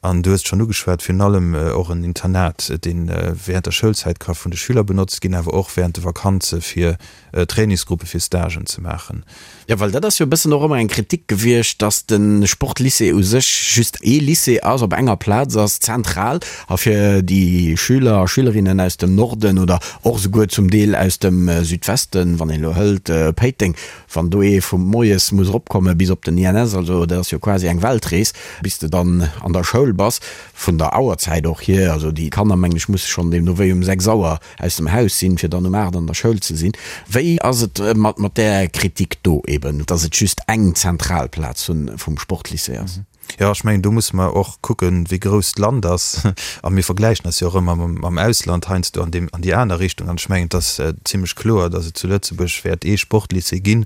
An du hues et schonn ugeschwat, virun allem och en Internat, dee während der Schoulzäit ka vun de Schüler benotzt ginn, awer och während de Vakanze fir Trainingsgruppe fir Stagen ze maachen. Jo, well dat ass jo e bëssen och ëmmer eng Kritik gewiescht, dass de Sportlycée u sech just ee Lycée ass, op enger Plaz ass, zentral, a fir déi Schüler a Schülerinnen aus dem Norden oder och esouguer zum Deel aus dem Südwesten, wann een elo hëlt Péiteng, wann do ee vu. moies muss eropkomme bis op den INS, also dat ass jo quasi eng Weltrees, bis de dann an der Schoul bass, vun der Auerzäit och hier. Also déi Kanner, mengen ech, musse schonn deemno wéi um 6 Auer aus dem Haus sinn, fir dann um 8 an der Schoul ze sinn. Wéi ass et mat mat där Kritik do eben, dass et just eng zentral Plaz vum Sportlycée ass? Jo, ech mengen, do musse mer och kucken, wéi grouss d'Land ass. A mir vergläichen eis jo och ëmmer mam Ausland heiansdo an deem, an déi aner Richtung. An ech mengen, et ass zimlech kloer, datt et zu Lëtzebuerg wäert ee Sportlycée ginn.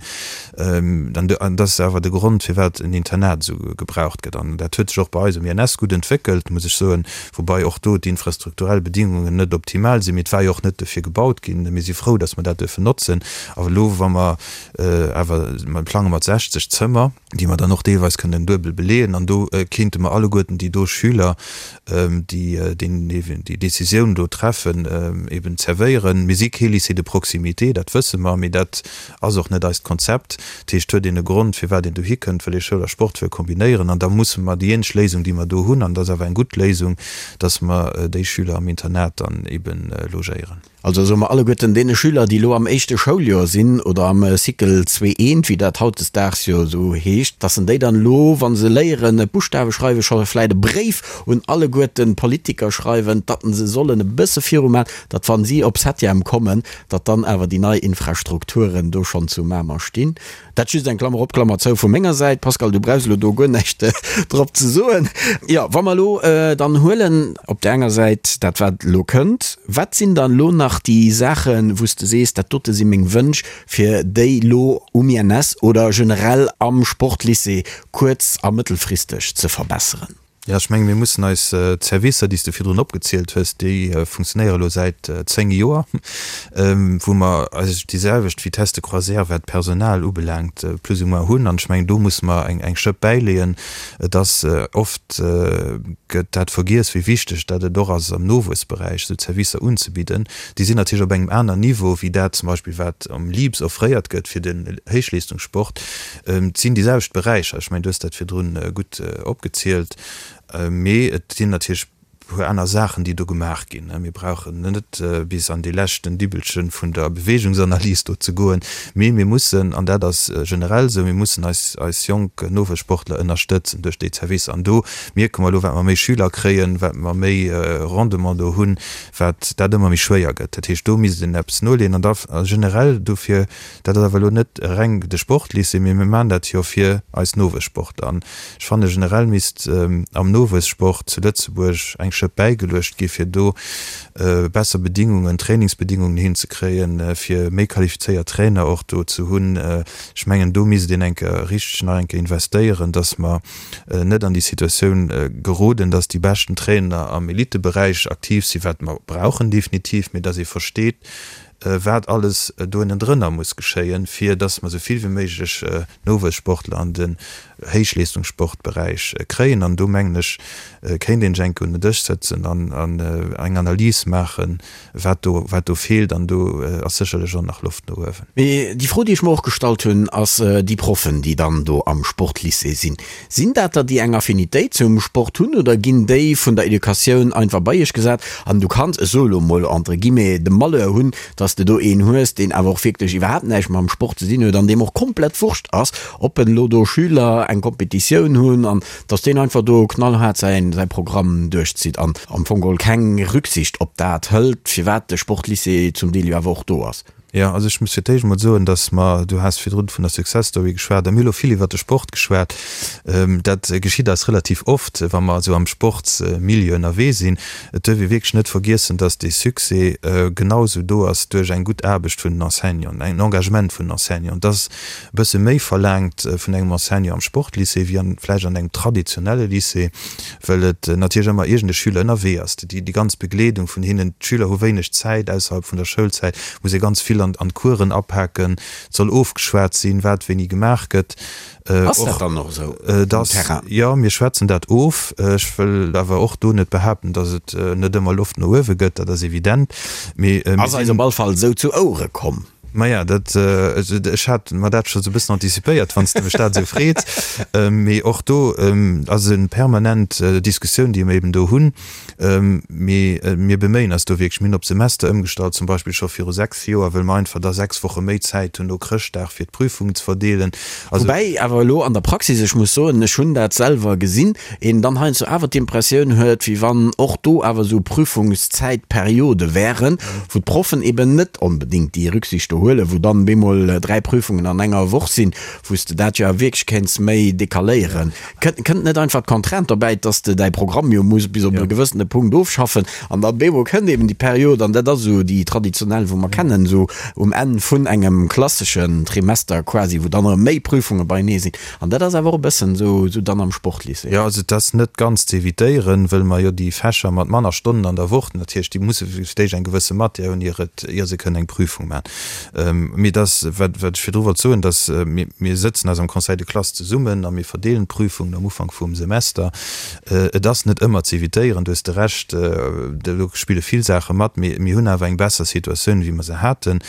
An dat ass awer de Grond, firwat en Internat esou gebraucht gëtt. An dat huet sech och bei eis um INS gutt entwéckelt, muss ech soen, woubai och do d'infrastrukturell Bedingungen net optimal sinn. Mee et war jo och net dofir gebaut ginn. Mir si frou, datt mer dat duerfen notzen. Awer elo, wa mer awer, mer plange mat 60 Zëmmer, déi mer dann och deelweis kënnen duebel beleeën an do kéinte mer alleguerten déi do Schüler, déi déi Décisioun do treffen, eben zerwéieren. Mir si kee Lycée de proximité, dat wësse mer, mee dat ass och net eist Konzept. Dat heescht, huet een e Grond, firwat een dohi kënnt, wëll ee Schoul a Sport wëll kombinéieren an da musse mer déi eenzeg Léisung, déi mer do hunn, an dat ass awer eng gutt Léisung, dass mer déi Schüler am Internat dann eben logéieren. Also soe mer alleguerten deene Schüler, déi elo am éischte Schouljoer sinn oder am Cycle zwee eent, wéi dat hautdesdaags jo esou heescht, dass en déi dann elo, wa se léieren d'Buschtawe schreiwen, scho vläicht e Bréif un alleguerten d'Politiker schreiwen, datt se sollen e bësse viruman, datt wa si op Septième kommen, datt dann awer déi nei Infrastrukturen do schonn zu Mamer stinn. Dat just eng Klammer op, Klammer zou vu menger Säit. Pascal, du brauchs elo do guer näischt drop ze soen. Jo, wa mer elo dann huelen op där enger Säit dat, wat elo kënnt, wat sinn dann elo nach déi Saachen, wou s de sees, dat dote si meng Wënsch, fir déi elo um INS oder generell am Sportlycée kuerz a mëttelfristeg ze verbesseren? Jo, ech menge mir mussen eis d'Servicer, déi s de virdrun opgezielt hues, déi funktionéiere elo säit 10 Joer, wou mer eigentlech déi selwecht Vitesse de croisière, wat d'Personal ubelaangt, plus ou moins hunn. An ech mengen, do musse mer eng Schëpp bäileeën. Et ass oft gëtt dat vergiess, wéi wichteg dat et och ass, am Nowuessberäich esou Zerwisser unzebidden. Déi sinn natierlech op engem aner Niveau wéi dat zum Beispill, wat am LIBS offréiert gëtt fir den Héichleestungssport. Et sinn déi selwecht Beräicher, ech mengen, du hues dat virdrun gutt opgezielt, mee et sinn natierlech e puer aner Saachen, déi do gemaach ginn. Mir brauchen net bis an dee leschten Dibbelche vun der Beweegungsanalys do ze goen, mee mir mussen, an dat ass generell esou, mir mussen eis, eis jonk Nowuessportler ënnerstëtzen duerch déi Zerwisser. An do mierke mer elo, wat mer méi Schüler kréien, wat mer méi Rendement do hunn, wat dat ëmmer méi schwéier gëtt. Dat heescht, do misst een eppes noleeën. An da generell dofir Dat ass awer elo net reng de Sportlycée, mee mir maachen dat jo fir eis Nowuessportler. An ech fanne generell misst am Nowuessport zu Lëtzebuerg eng Schëpp bäigeluecht gi fir do besser Bedingungen, Trainingsbedingungen hinzekréien, fir méi qualifizéiert Trainer och do ze hunn. Ech mengen do misst een eng Kéier richteg nach eng Kéier investéieren, datt mer net an déi Situatioun geroden, datt déi beschten Trainer am Eliteberäich aktiv sinn, wat mer brauchen definitiv, mee datt ee versteet, wat alles do ënnendrënner muss geschéien, fir dass mer esou vill wéi méiglech Nowuessportler an den Héichleestungssportberäich kréien. An do mengen ech, kéint een sech eng Kéier un den Dësch sëtzen an eng Analys maachen, wat do, wat do feelt. An do ass sécherlech och nach Loft no uewen. Mee déi Fro, déi ech mer och gestallt hunn, ass déi Proffen, déi dann do am Sportlycée sinn, Sinn dat der, déi eng Affinitéit zum Sport hunn oder ginn déi vun der Educatioun einfach bei iech gesat an du kanns, ech soe lo mol entre guillemets, de Malheur hunn, dass de do een hues, deen awer och wierklech iwwerhaapt näischt mam Sport ze dinn huet an deem och komplett Wurscht ass, ob en elo do Schüler eng Competitioun hunn an dass deen einfach do knallhaart säin säi Programm duerchzitt an am Fong geholl keng Rücksicht op dat hëlt, firwat de Sportlycée zum Deel jo awer och do ass. Jo, also ech muss fir d'éischt emol soen, datt mer, du has virdrun vun der Success Story geschwat a mir hu lo vill iwwert de Sport geschwat, dat geschitt eis relativ oft, wa mer esou am Sportsmilieu ënnerwee sinn. Et duerf ee wierklech net vergiessen, datt dee Succès genau esou do ass duerch eng gutt Aarbecht vun den Enseignanten, en Engagement vun den Enseignanten. Et ass e bësse méi verlaangt vun engem Enseignant am Sportlycée wéi an vläicht an engem traditionelle Lycée, well et natierlech ëmmer iergend e Schüler ënnerwee ass. Déi ganz Begleedung vun hinnen, d'Schüler hu wéineg Zäit ausserhalb vun der Schoulzäit, muss ee ganz vill an d'Coursen apaken, et soll ofgeschwat sinn, wat wéini gemaach gëtt. Ass dat dann och esou um Terrain? Jo, mir schwätzen dat of. Ech wëll awer och do net behaapten, datt et net ëmmer Loft no uewe gëtt, dat ass evident. Mee mir sinn. Ass eis op all Fall esou zu Ouere komm. Maja, dat, ech hat mer dat scho sou e bëssen anticipéiert, wann s de mech dat esou freets. Mee och do ass e permanent Diskussioun, déi mer eben do hunn. Mee mir beméien eis do wierklech. Mir hunn op Semester ëmgestallt, zum Beispill scho viru 6 Joer, wëll mer einfach da 6 Woche méi Zäit hunn no Chrëschtdag, fir d'Prüfungen ze verdeelen. Also. Woubäi awer elo an der Praxis, ech muss soen, ech hunn dat selwer gesinn, een dann heiansdo awer d'Impressioun huet, wéi wann och do awer esou Prüfungszäitperiode wären, wou d'Proffen eben net onbedéngt déi Rücksicht do huelen, wou dann bemol 3 Prüfungen an enger Woch sinn, wou s de dat jo awer wierklech kéints méi decaléieren. Kënnt net einfach d'Contrainte dobäi, dass de däi Programm jo muss bis op e gewëssene Punkt ofschaffen an da bemol kënnt eben déi Period, an dat ass esou déi traditionell, wou mer kennen, esou um Enn vun engem klasseschen Trimester quasi, wou dann erëm méi Prüfunge beienee sinn. An dat ass awer och e bëssen esou dann am Sportlycée. Jo, also et ass net ganz ze evitéieren, wëll mer jo déi Fächer mat manner Stonnen an der Woch, natierlech, déi musse fir d'éischt eng gewësse Matière hunn, ier et, ier se kënnen eng Prüfung maachen. Mee et ass, wat, wat ech virdru wollt soen, dass mir, mir sëtzen eis am Conseil de classe zesummen a mir verdeelen d'Prüfungen am Ufank vum Semester. Et ass net ëmmer ze evitéieren, do hues de Recht, do spille vill Saache mat, mee mir hunn awer eng besser Situatioun, wéi mer se haten.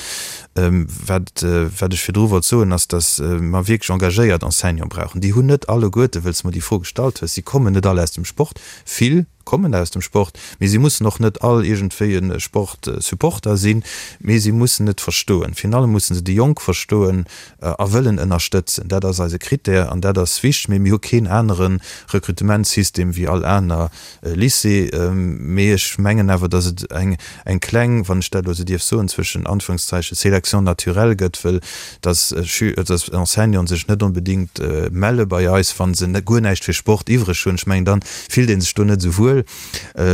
Wat, wat ech virdru wollt soen, ass, datt mer wierklech engagéiert Enseignante brauchen. Déi hunn net alleguerte, wëll s de mer déi Fro gestallt hues, si kommen net all aus dem Sport. Vill kommen aus dem Sport, mee si mussen och net all iergendwéi e Sportsupporter sinn, mee si mussen et verstoen. Virun allem musse se déi Jonk verstoen a wëllen ënnerstëtzen. Dat ass eise Krittär an dat ass wichteg. Mee mir hu keen anere Rekrutementssystem wéi all aner Lycée, mee ech mengen awer, datt et eng eng kleng, wann ech dat elo esou dierf soen, zwëschen Anführungszeichen, Sélection naturelle gëtt, wëll datt Schü-, datt Enseignanten sech net onbedéngt melle bei eis, wa se guer näischt fir Sport iwwreg hunn. Ech mengen, dann fillt ee sech do net esou wuel,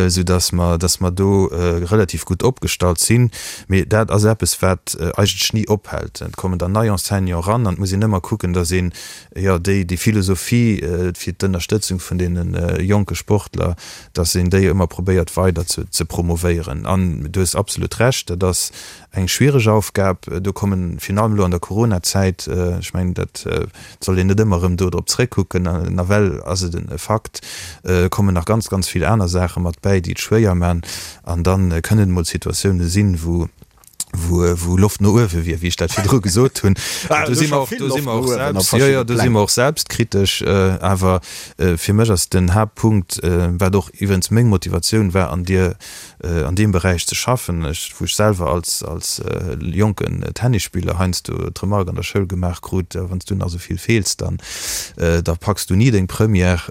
soudatt mer, datt mer do relativ gutt opgestallt sinn. Mee dat ass eppes, wat eigentlech ni ophält. Et kommen dann nei Enseignanten eran an et muss een ëmmer kucken, datt een jo, déi, déi Philosophie fir d'Ënnerstëtzung vun deene jonke Sportler, dass een déi ëmmer probéiert weider ze, ze promovéieren. An du hues absolut Recht, dat ass eng schwiereg Aufgab. Do kommen, virun allem elo an der Coronazäit, ech mengen, dat soll een net ëmmer erëm do drop zréckkucken, nawell ass et e Fakt, kommen nach ganz, ganz vill aner Saache mat bäi, déi et schwéier man. An da kënnen et mol Situatiounen sinn, wou, wou, wou Loft no uewe wier, wéi ech dat virdru gesot hunn. Ah, do si mer och, do si mer och selbst, jo, jo, do si mer och selbstkritesch. Awer fir mech ass den Haaptpunkt, wat och iwwerens meng Motivatioun war, an dir, an deem Beräich ze schaffen, ech, wou ech selwer als, als jonken Tennisspiller heiansdo d'Remark an der Schoul gemaach krut, Wann s du nach esou vill feels, dann, da packs du ni deng Première.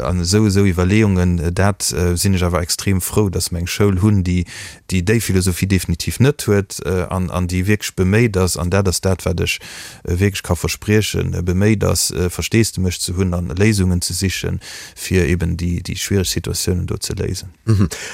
An esou, esou Iwwerleeungen, dat sinn ech awer extrem frou, dass mer eng Schoul hunn, déi, déi déi Philosophie definitiv net huet an an déi wierklech beméit ass, an dat ass dat, wat ech wierklech ka verspriechen, beméit ass, Versteesdemech ze hunn an Léisungen ze sichen, fir eben déi déi schwiereg Situatiounen do ze léisen.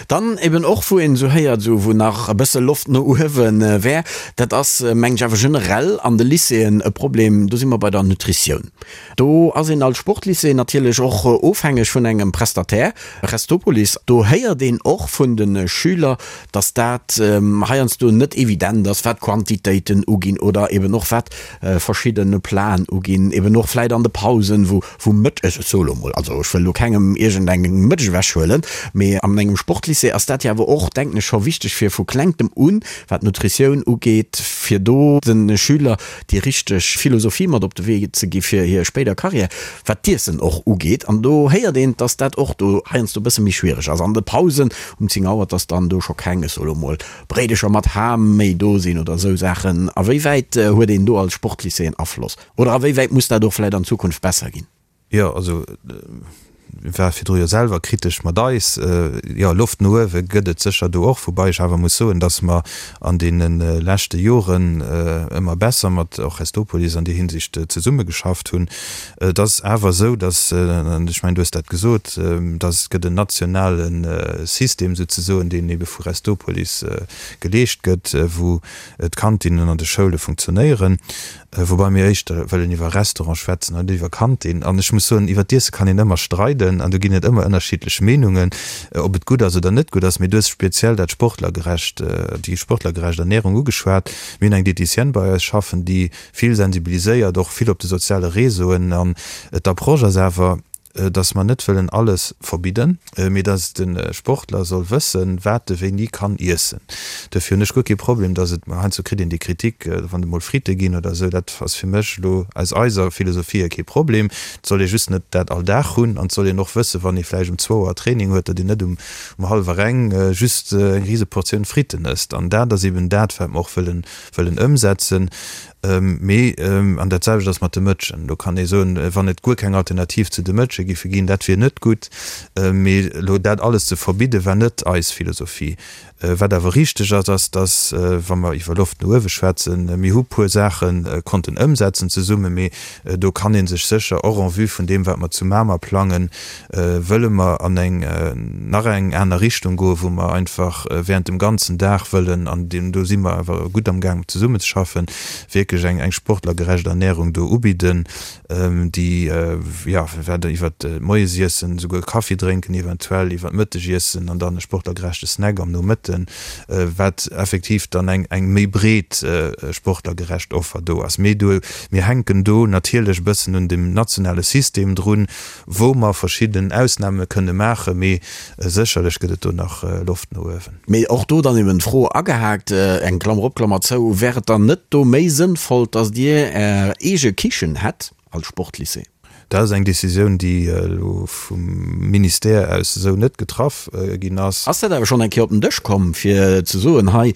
Dann eben och, wou een esou héiert, esou wou nach e bësse Loft no uewe wär, dat ass, mengen ech, awer generell an de Lycéeën e Problem, do si mer bei der Nutritioun. Do ass een als Sportlycée natierlech och ofhängeg vun engem Prestataire, Restopolis. Do héiert een och vun de Schüler, datt dat heiansdo net evident ass, wat d'Quantitéiten uginn oder eben och wat verschidde Platen uginn, eben och vläit an de Pausen, wou wou Mëtt, ech soe lo mol, also ech wëll lo kengem iergendeng Mëtsch ewechhuelen, mee an engem Sportlycée ass dat jo awer och, denken ech, scho wichteg fir vu klengtem un, wat d'Nutritioun ugeet, fir do de Schüler déi richteg Philosophie mat op de Wee ze gi fir hir spéider Carrière, wat d'Iessen och ugeet. An do héiert een, dass dat och do heiansdo e bësse méi schwiereg ass. An de Pausen um 10 Auer, dass dann do scho keng, ech soe lo mol, Bréidecher mat Ham méi do sinn oder esou Saachen. A wéi wäit huet een do als Sportlycée en Afloss? Oder a wéi wäit muss dat och vläicht an Zukunft besser ginn? Jo, also war virdru jo selwer kritesch mat eis. Jo, Loft no uewe gëtt et sécher do och, woubai ech awer muss soen, datt mer an deene leschte Joren ëmmer besser mat och Restopolis an där Hinsicht zesummegeschafft hunn. Et ass awer esou, datt, an ech mengen, du hues dat gesot, datt et gëtt en nationale System souzesoen, deen ebe vu Restopolis geleescht gëtt, wou d'Kantinnen an de Schoule funktionéieren. Woubai mir éischter wëllen iwwer Restaurant schwätzen an net iwwer Kantin. An ech muss soen, iwwer d'Iesse kann een ëmmer streiden an do ginn et ëmmer ënnerschiddlech Meenungen, ob et gutt ass oder net gutt ass. Mee du hues speziell dat sportlergerecht, déi sportlergerecht Ernährung ugeschwat. Mir hunn eng Diéticienne bei eis schaffen, déi vill sensibiliséiert, och vill op de soziale Réseauen. An d'Approche ass awer. datt mer net wëllen alles verbidden, mee datt de Sportler soll wëssen, wat e wéini kann iessen. Duerfir hunn ech guer kee Problem, datt et, heiansdo kritt een déi Kritik, wann et emol Fritte ginn oder esou, dat ass fir mech elo aus eiser Philosophie hier kee Problem. Et soll ee just net dat all Dag hunn an et soll een och wëssen, wann ee vläicht um zwou Auer Training huet, datt een net um hallwer eng just eng rise Portioun Fritten ësst. An dat ass eben dat, wat mer och wëllen, wëllen ëmsetzen. Mee, an dat selwecht ass mat de Mëtschen, do kann ee soen, wann et guer keng Alternativ zu de Mëtsche giffe ginn, dat wier net gutt. Mee elo dat alles ze verbidden, war net eis Philosophie. Wat awer richteg ass, ass, dass, wa mer iwwer Loft no uewe schwätzen, mir hu puer Saache konnten ëmsetzen zesummen, mee do kann ee sech sécher och en vue vun deem, wat mer zu Mamer plangen, wëlle mer an eng nach eng aner Richtung goen, wou mer einfach während dem ganzen Dag wëllen, an do si mer awer gutt am Gaang zesummenzeschaffen, wierklech eng eng sportlergerecht Ernährung do ubidden, déi, jo, wat iwwert d'Moiesiessen, souguer Kaffi drénken eventuell, iwwert d'Mëttegiessen an dann e sportlergerechte Snack am Nomëtten, wat effektiv dann eng eng méi breet sportlergerecht Offer do ass. Mee do, mir hänken do natierlech e bëssen un dem nationale System drun, wou mer verschidden Ausnahme kënne maachen, mee sécherlech gëtt et do nach Loft no uewen. Mee och do dann eben d'Fro agehaakt, eng Klammer op, Klammer zou, Wär et dann net do méi sënnvoll, dass Dir Är eege Kichen hätt als Sportlycée? Dat ass eng Décisioun, déi elo vum Ministère aus esou net getraff ginn ass. Ass dat awer schonn eng Kéier op den Dësch komm, fir ze soen, hei,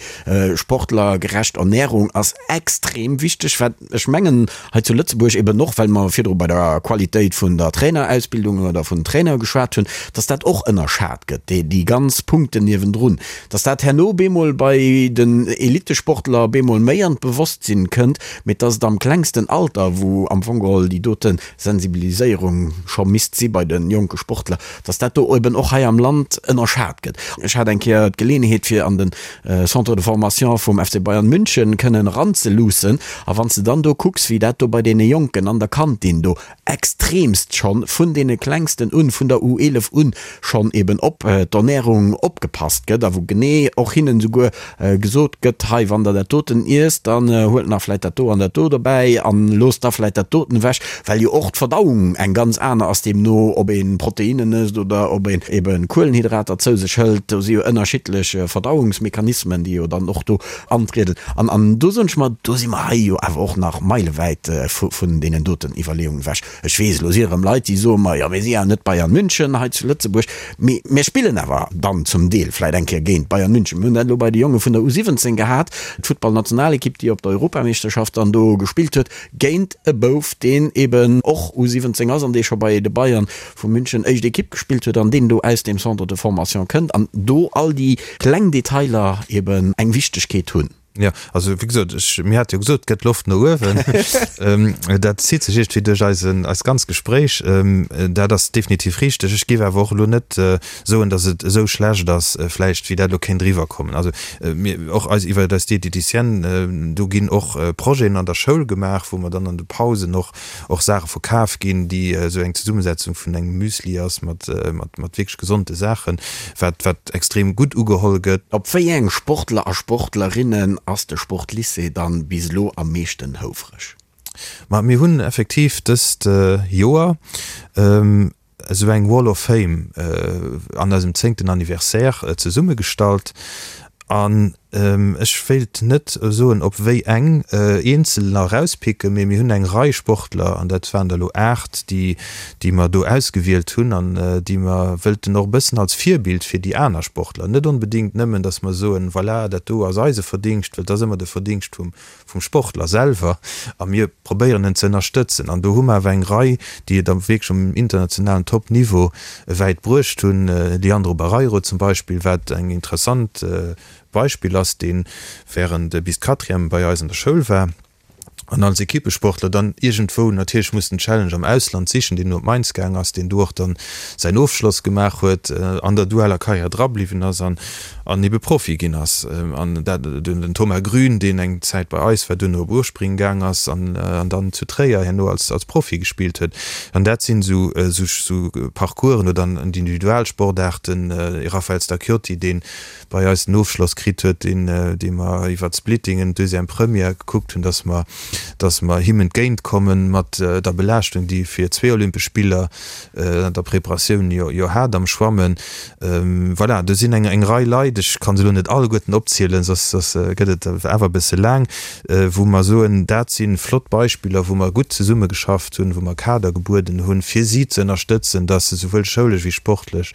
sportlergerecht Ernährung ass extrem wichteg, wat ech mengen, Hei zu Lëtzebuerg eben och, well mer virdru bei der Qualitéit vun der Trainerausbildung oder vun den Trainere geschwat hunn, dass dat och ënnerschat gëtt, déi, déi ganz Punkten niewendrun, dass dat herno bemol bei den Elittesportler bemol méi an d'Bewosstsinn kënnt, mee dass et am klengsten Alter, wou am Fong geholl déi dote Sensibiliséierung scho misst si bei de jonke Sportler, dass dat do eben och hei am Land ënnerschat gëtt. Ech hat eng Kéier d'Geleeënheet fir an den Centre de formation vum FC Bayern München kënnen eranzeluussen. A wann s de dann do kucks, wéi dat do bei deene Jonken an der Kantin do extremst schonn vun deene Klengsten un, vun der U11 un schonn eben op d'Ernährung opgepasst gëtt a wou genee och hinnen esouguer gesot gëtt, hei wann der dat doten iesst, dann huelt nach vläit dat do an dat do dobäi an loosst da vläit dat doten ewech, well jo och d'Verdauung eng ganz aner ass, deemno ob ee Proteinnen ësst oder ob een ebe Kuelenhydrater zou sech hëlt, do si jo ënnerschiddlech Verdauungsmechanismen, déi jo dann och do antrieden. An an do soen ech mer, do si mer hei jo awer och nach meilewäit vun deenen doten Iwwerleeungen ewech. Ech weess, elo si erëm Leit, déi soe mer, jo mir si ja net Bayern München hei zu Lëtzebuerg, mee mir spillen awer dann zum Deel vläit eng Kéier géint Bayern München. Mir hunn dat elo bei de Jonge vun der U17 gehat, d'Futtballnationalekipp, déi op der Europameeschterschaft dann do gespillt huet, géint e Bouf, deen eben och U17 ass an dee scho bei de Bayern vu München éischt Ekipp gespillt huet an deen do aus deem Centre de formation kënnt an do all déi kleng Detailer eben eng Wichtegkeet hunn. Jo, also wéi gesot, ech, mir hate jo gesot, et gëtt Loft no uewen. Dat zitt sech iergendwéi duerch eisen, eist ganz Gespréich. Dat ass definitiv richteg. Ech géif awer och elo net soen, datt et esou schlecht ass vläicht, wéi dat elo kéint eriwwerkommen. Also mir, och eis, iwwer eis Diététicienne, do ginn och Projeten an der Schoul gemaach, wou mer dann an de Pausen och och Saache verkaf ginn, déi esou eng Zesummesetzung vun engem Müsli ass mat, mat, mat wierklech gesonde Saachen, wat, wat extrem gutt ugeholl gëtt. Op wéi eng Sportler a Sportlerinnen ass de Sportlycée dann bis elo am meeschten houfreg? Ma mir hunn effektiv dëst Joer esou eng Wall of Fame an eisem zéngten Anniversaire zesummegestallt an ech wéilt net soen op wéi eng eenzeler erauspicken, mee mir hunn eng Rei Sportler, an dat waren der elo 8, déi déi mer do ausgewielt hunn an déi mer wëllten och e bëssen als Virbild fir déi aner Sportler, net onbedéngt nëmmen, datt mer soen, voilà, dat do ass eise Verdingscht, well et ass ëmmer de Verdingscht vum vum Sportler selwer a mir probéieren en ze ënnerstëtzen. An do hu mer awer eng Rei, déi et am wierklech um internationalen Top-Niveau wäit bruecht hunn, Leandro Barreiro zum Beispill, wat eng interessant Beispill ass, dee während bis d'Quatrième bei eis an der Schoul war an als Equippesportler dann iergendwou natierlech muss den Challenge am Ausland sichen, deen no op Mainz gaang ass, deen do och dann säin Ofschloss gemaach huet, an der dualer Karriär drabliwwen ass an an ebe Profi ginn ass. An dat den Thomas Grün, deen eng Zäit bei eis war, duerno op Urspring gaang ass an dann zu Tréier herno als als Profi gespillt huet. An dat sinn esou esou Parcoursen oder an d'Individualsportaarten, Raphaël Stacchiotti, dee bei eis den Ofschloss kritt huet, deen dee mer iwwer d'Splittingen, Deuxième, Première gekuckt hunn, datt mer. datt mer him entgéintkomme mat der Belaaschtung, déi e fir zwee Olympesch Spiller an der Preparatioun jo hat am Schwammen. Voilà, do sinn eng Rei Leit, ech ka se elo net alleguerten opzielen, soss gëtt et awer e bësse laang, wou mer soen, dat si flott Beispiller, wou mer gutt zesummegeschafft hunn, wou mer Kader gebueden hunn, fir si ze ënnerstëtzen, datt se souwuel schoulesch wéi sportlech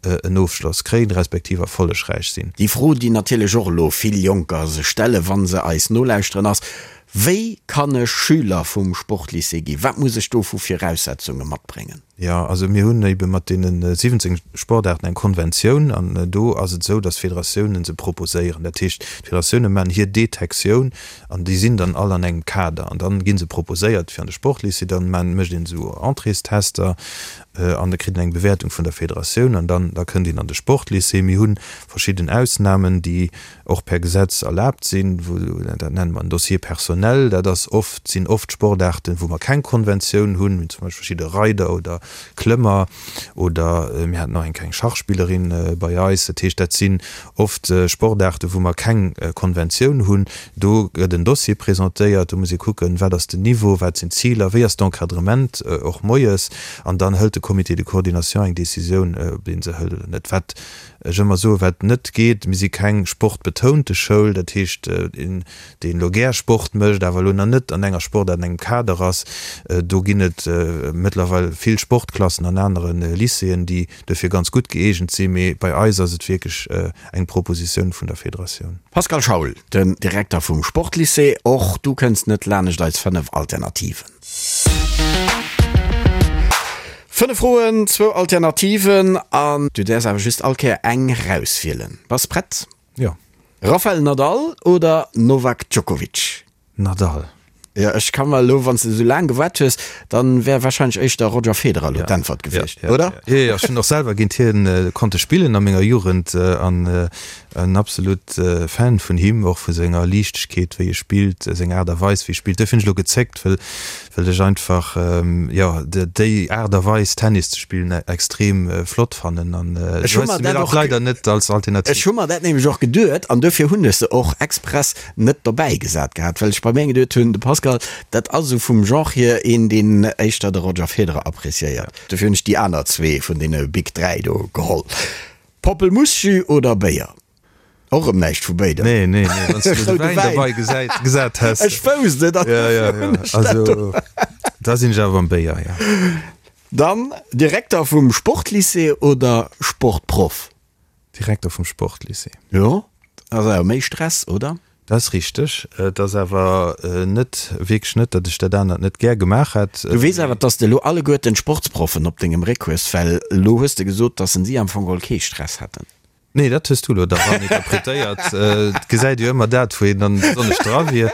en Ofschloss kréien, respektiv erfollegräich sinn. Déi Fro, déi natierlech och elo vill Jonker sech stellen, wa se eis nolauschteren, ass, Wéi kann ech Schüler vum Sportlycée ginn? Wat muss ech do vu Viraussetzunge matbréngen? Jo, also mir hunn ebe mat deene 17 Sportaarten eng Konventioun an do ass et esou, datt d'Federatiounen se proposéieren. Dat heescht, d'Federatioune maachen hir Detektioun an déi sinn dann all an engem Kader an dann gi se proposéiert fir an de Sportlycée. Dann mécht een esou Entréestester an da kritt een eng Bewäertung vun der Federatioun an dann da kënnt een an de Sportlycée. Mir hu verschidden Ausnamen, déi och per Gesetz erlaabt sinn, wou, dat nenne mer en Dossier personnel, dat ass oft, sinn oft Sportaarten, wou mer keng Konventioun hunn, wéi zum Beispill verschidde Reider oder Klëmmer oder mir haten och eng kleng Schachspillerin bei eis. Dat heescht, dat sinn oft Sportaarten, wou mer keng Konventioun hunn. Do gëtt en Dossier presentéiert, do muss ee kucken, wat ass den Niveau, wat sinn d'Ziler, wéi ass d'Encadrement och moies, an dann hëlt de Comité de coordination eng Décisioun, ob ee se hëlt oder net. Wat ech ëmmer soen, wat net geet, mir si keng sportbetounte Schoul, dat heescht, een, deen elo gär Sport mécht, awer elo nach net an enger Sportaart, an engem Kader ass, do ginn et mëttlerweil vill Sportklassen an anere Lycéeën, déi dofir ganz gutt gëeegent sinn, mee bei eis ass et wierklech eng Propositioun vun der Federatioun. Pascal Schaul, den Direkter vum Sportlycée, och du kënns net lanescht eis 5 Alternativen. 5 Froen, zwou Alternativen an du däerfs awer just all Kéier eng rauswielen. Bass prett? Jo. Rafael Nadal oder Novak Djokovic? Nadal. Jo, ech ka mer elo, wann s de esou laang gewaart hues, dann wär wahrscheinlech éischter Roger Federer elo d'Äntwert gewiescht, oder? Jo, jo, ech hunn och selwer géint hien konnte spillen a menger Jugend an en absolut Fan vun him, och vu senger Liichtegkeet wéi e spillt, seng Aart a Weis wéi e spillt. Duerfir hunn ech elo gezéckt, wëll well ech einfach, jo, déi Aart a Weis Tennis ze spillen extrem flott fannen an ech hu mer dat och leider net als Alternativ. Ech hu mer dat nämlech och geduet an duerfir hunn ech se och express net dobäi gesat gehat, well ech bei mir geduet hunn, de Pascal, dat ass esou vum Genre hier een, deen éischter de Roger Federer appreciéiert. Dofir hunn ech déi aner zwee vun deene Big 3 do geholl. Poppelmussjus oder Béier? Och erëm näischt vu béidem. Nee, nee, nee, wann s de de Wäin dobäi gesäit, gesat häss. Ech wousst et, an dofir hunn ech dat do. Also, da sinn ech awer beim Béier, jo. Dann Direkter vum Sportlycée oder Sportproff? Direkter vum Sportlycée. Jo, ass awer méi Stress, oder? Dat ass richteg. Et ass awer net, wierklech net, datt ech dat anert net gär gemaach hätt. Du weess awer, datt s de elo alleguerten d'Sportsproffen op dengem Réck hues, well elo hues de gesot, datt se si am Fong geholl kee Stress hätten. Nee, dat hues du elo da ran interpretéiert. Et gesäit jo ëmmer dat, wou een dann besonnesch dra wier.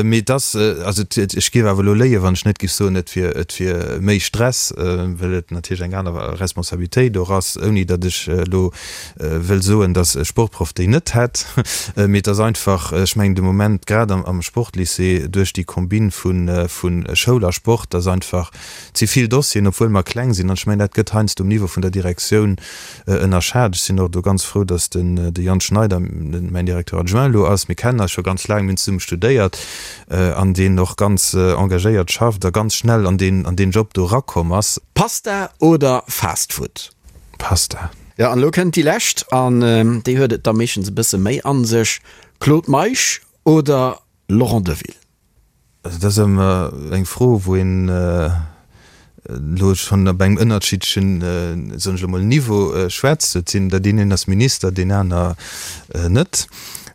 Mee et ass, also ech géif awer elo léien, wann ech net géif soen, et wier, et wier méi Stress, well et natierlech eng aner Responsabilitéit och ass, ouni datt ech elo wëll soen, datt e Sportproff déi net hätt. Mee et ass einfach, ech mengen de Moment grad am Sportlycée duerch déi Combine vu Schoul a Sport, datt einfach ze vill Dossieren, obwuel mer kleng sinn, an ech mengen dat gëtt heiansdo um Niveau vun der Direktioun ënnerschat. Ech sinn och do ganz frou, datt den de Jan Schneider mäin Directeur adjoint elo ass. Mir kennen eis scho ganz laang, mir hunn zesumme studéiert, an deen och ganz engagéiert schafft a ganz schnell an deen an deen Job do erakomm ass. Pasta oder Fast Food? Pasta. Jo, an elo kënnt déi lescht, an déi huet et da meeschtens e bësse méi a sech, Claude Meisch oder Laurent Deville? Also dat ass ëmmer eng Fro, wou een elo schonn op engem ënnerschiddlechen, soen ech elo mol, Niveau schwätzt. Et sinn der, deen een ass Minister, deen aner net.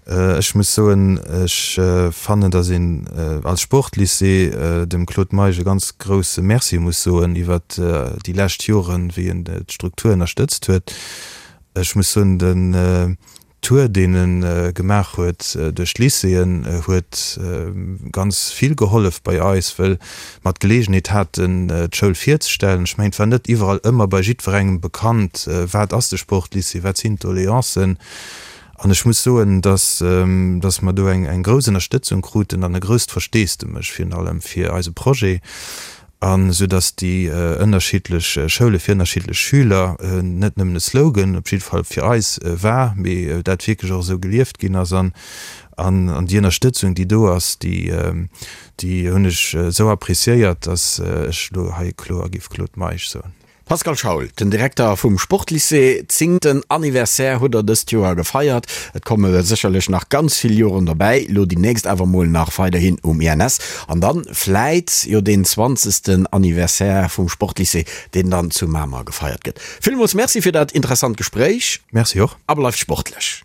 Ech muss soen, ech fannen, datt een als Sportlycée dem Claude Meisch e ganz grousse Merci muss soen iwwert déi lescht Joren, wéi en d'Struktur ënnerstëtzt huet. Ech muss soen, den Tour, deen e gemaach huet duerch d'Lycéeën, huet ganz vill gehollef bei eis, wëll mer d'Geleegenheet haten, d'Schoul virzestellen. Ech mengen, et war net iwwerall ëmmer bei jiddwerengem bekannt, wat ass de Sportlycée, wat sinn d'Doleancen. An ech muss soen, dass, dass mer do eng, eng grouss Ënnerstëtzung kruten an e grousst Versteesdemech virun allem fir eise Projet. An esou datt déi ënnerschiddlech Schoule fir ënnerschiddlech Schüler net nëmmen e Slogan, op jidde Fall fir eis, war, mee dat wierklech och esou gelieft ginn ass. An an déi Ënnerstëtzung, déi do ass, déi déi hunn ech esou appreciéiert, datt ech elo hei kloer géif Claude Meisch soen. Pascal Schaul, den Direkter vum Sportlycée, zéngten Anniversaire hutt der dëst Joer gefeiert. Et komme sécherlech nach ganz vill Joren dobäi, lo déi nächst awer mol nach weiderhin um INS an dann vläit jo deen zwanzegsten Anniversaire vum Sportlycée, deen dann zu Mamer gefeiert gëtt. Villmools Merci fir dat interessant Gespréich. Merci och. A bleift sportlech.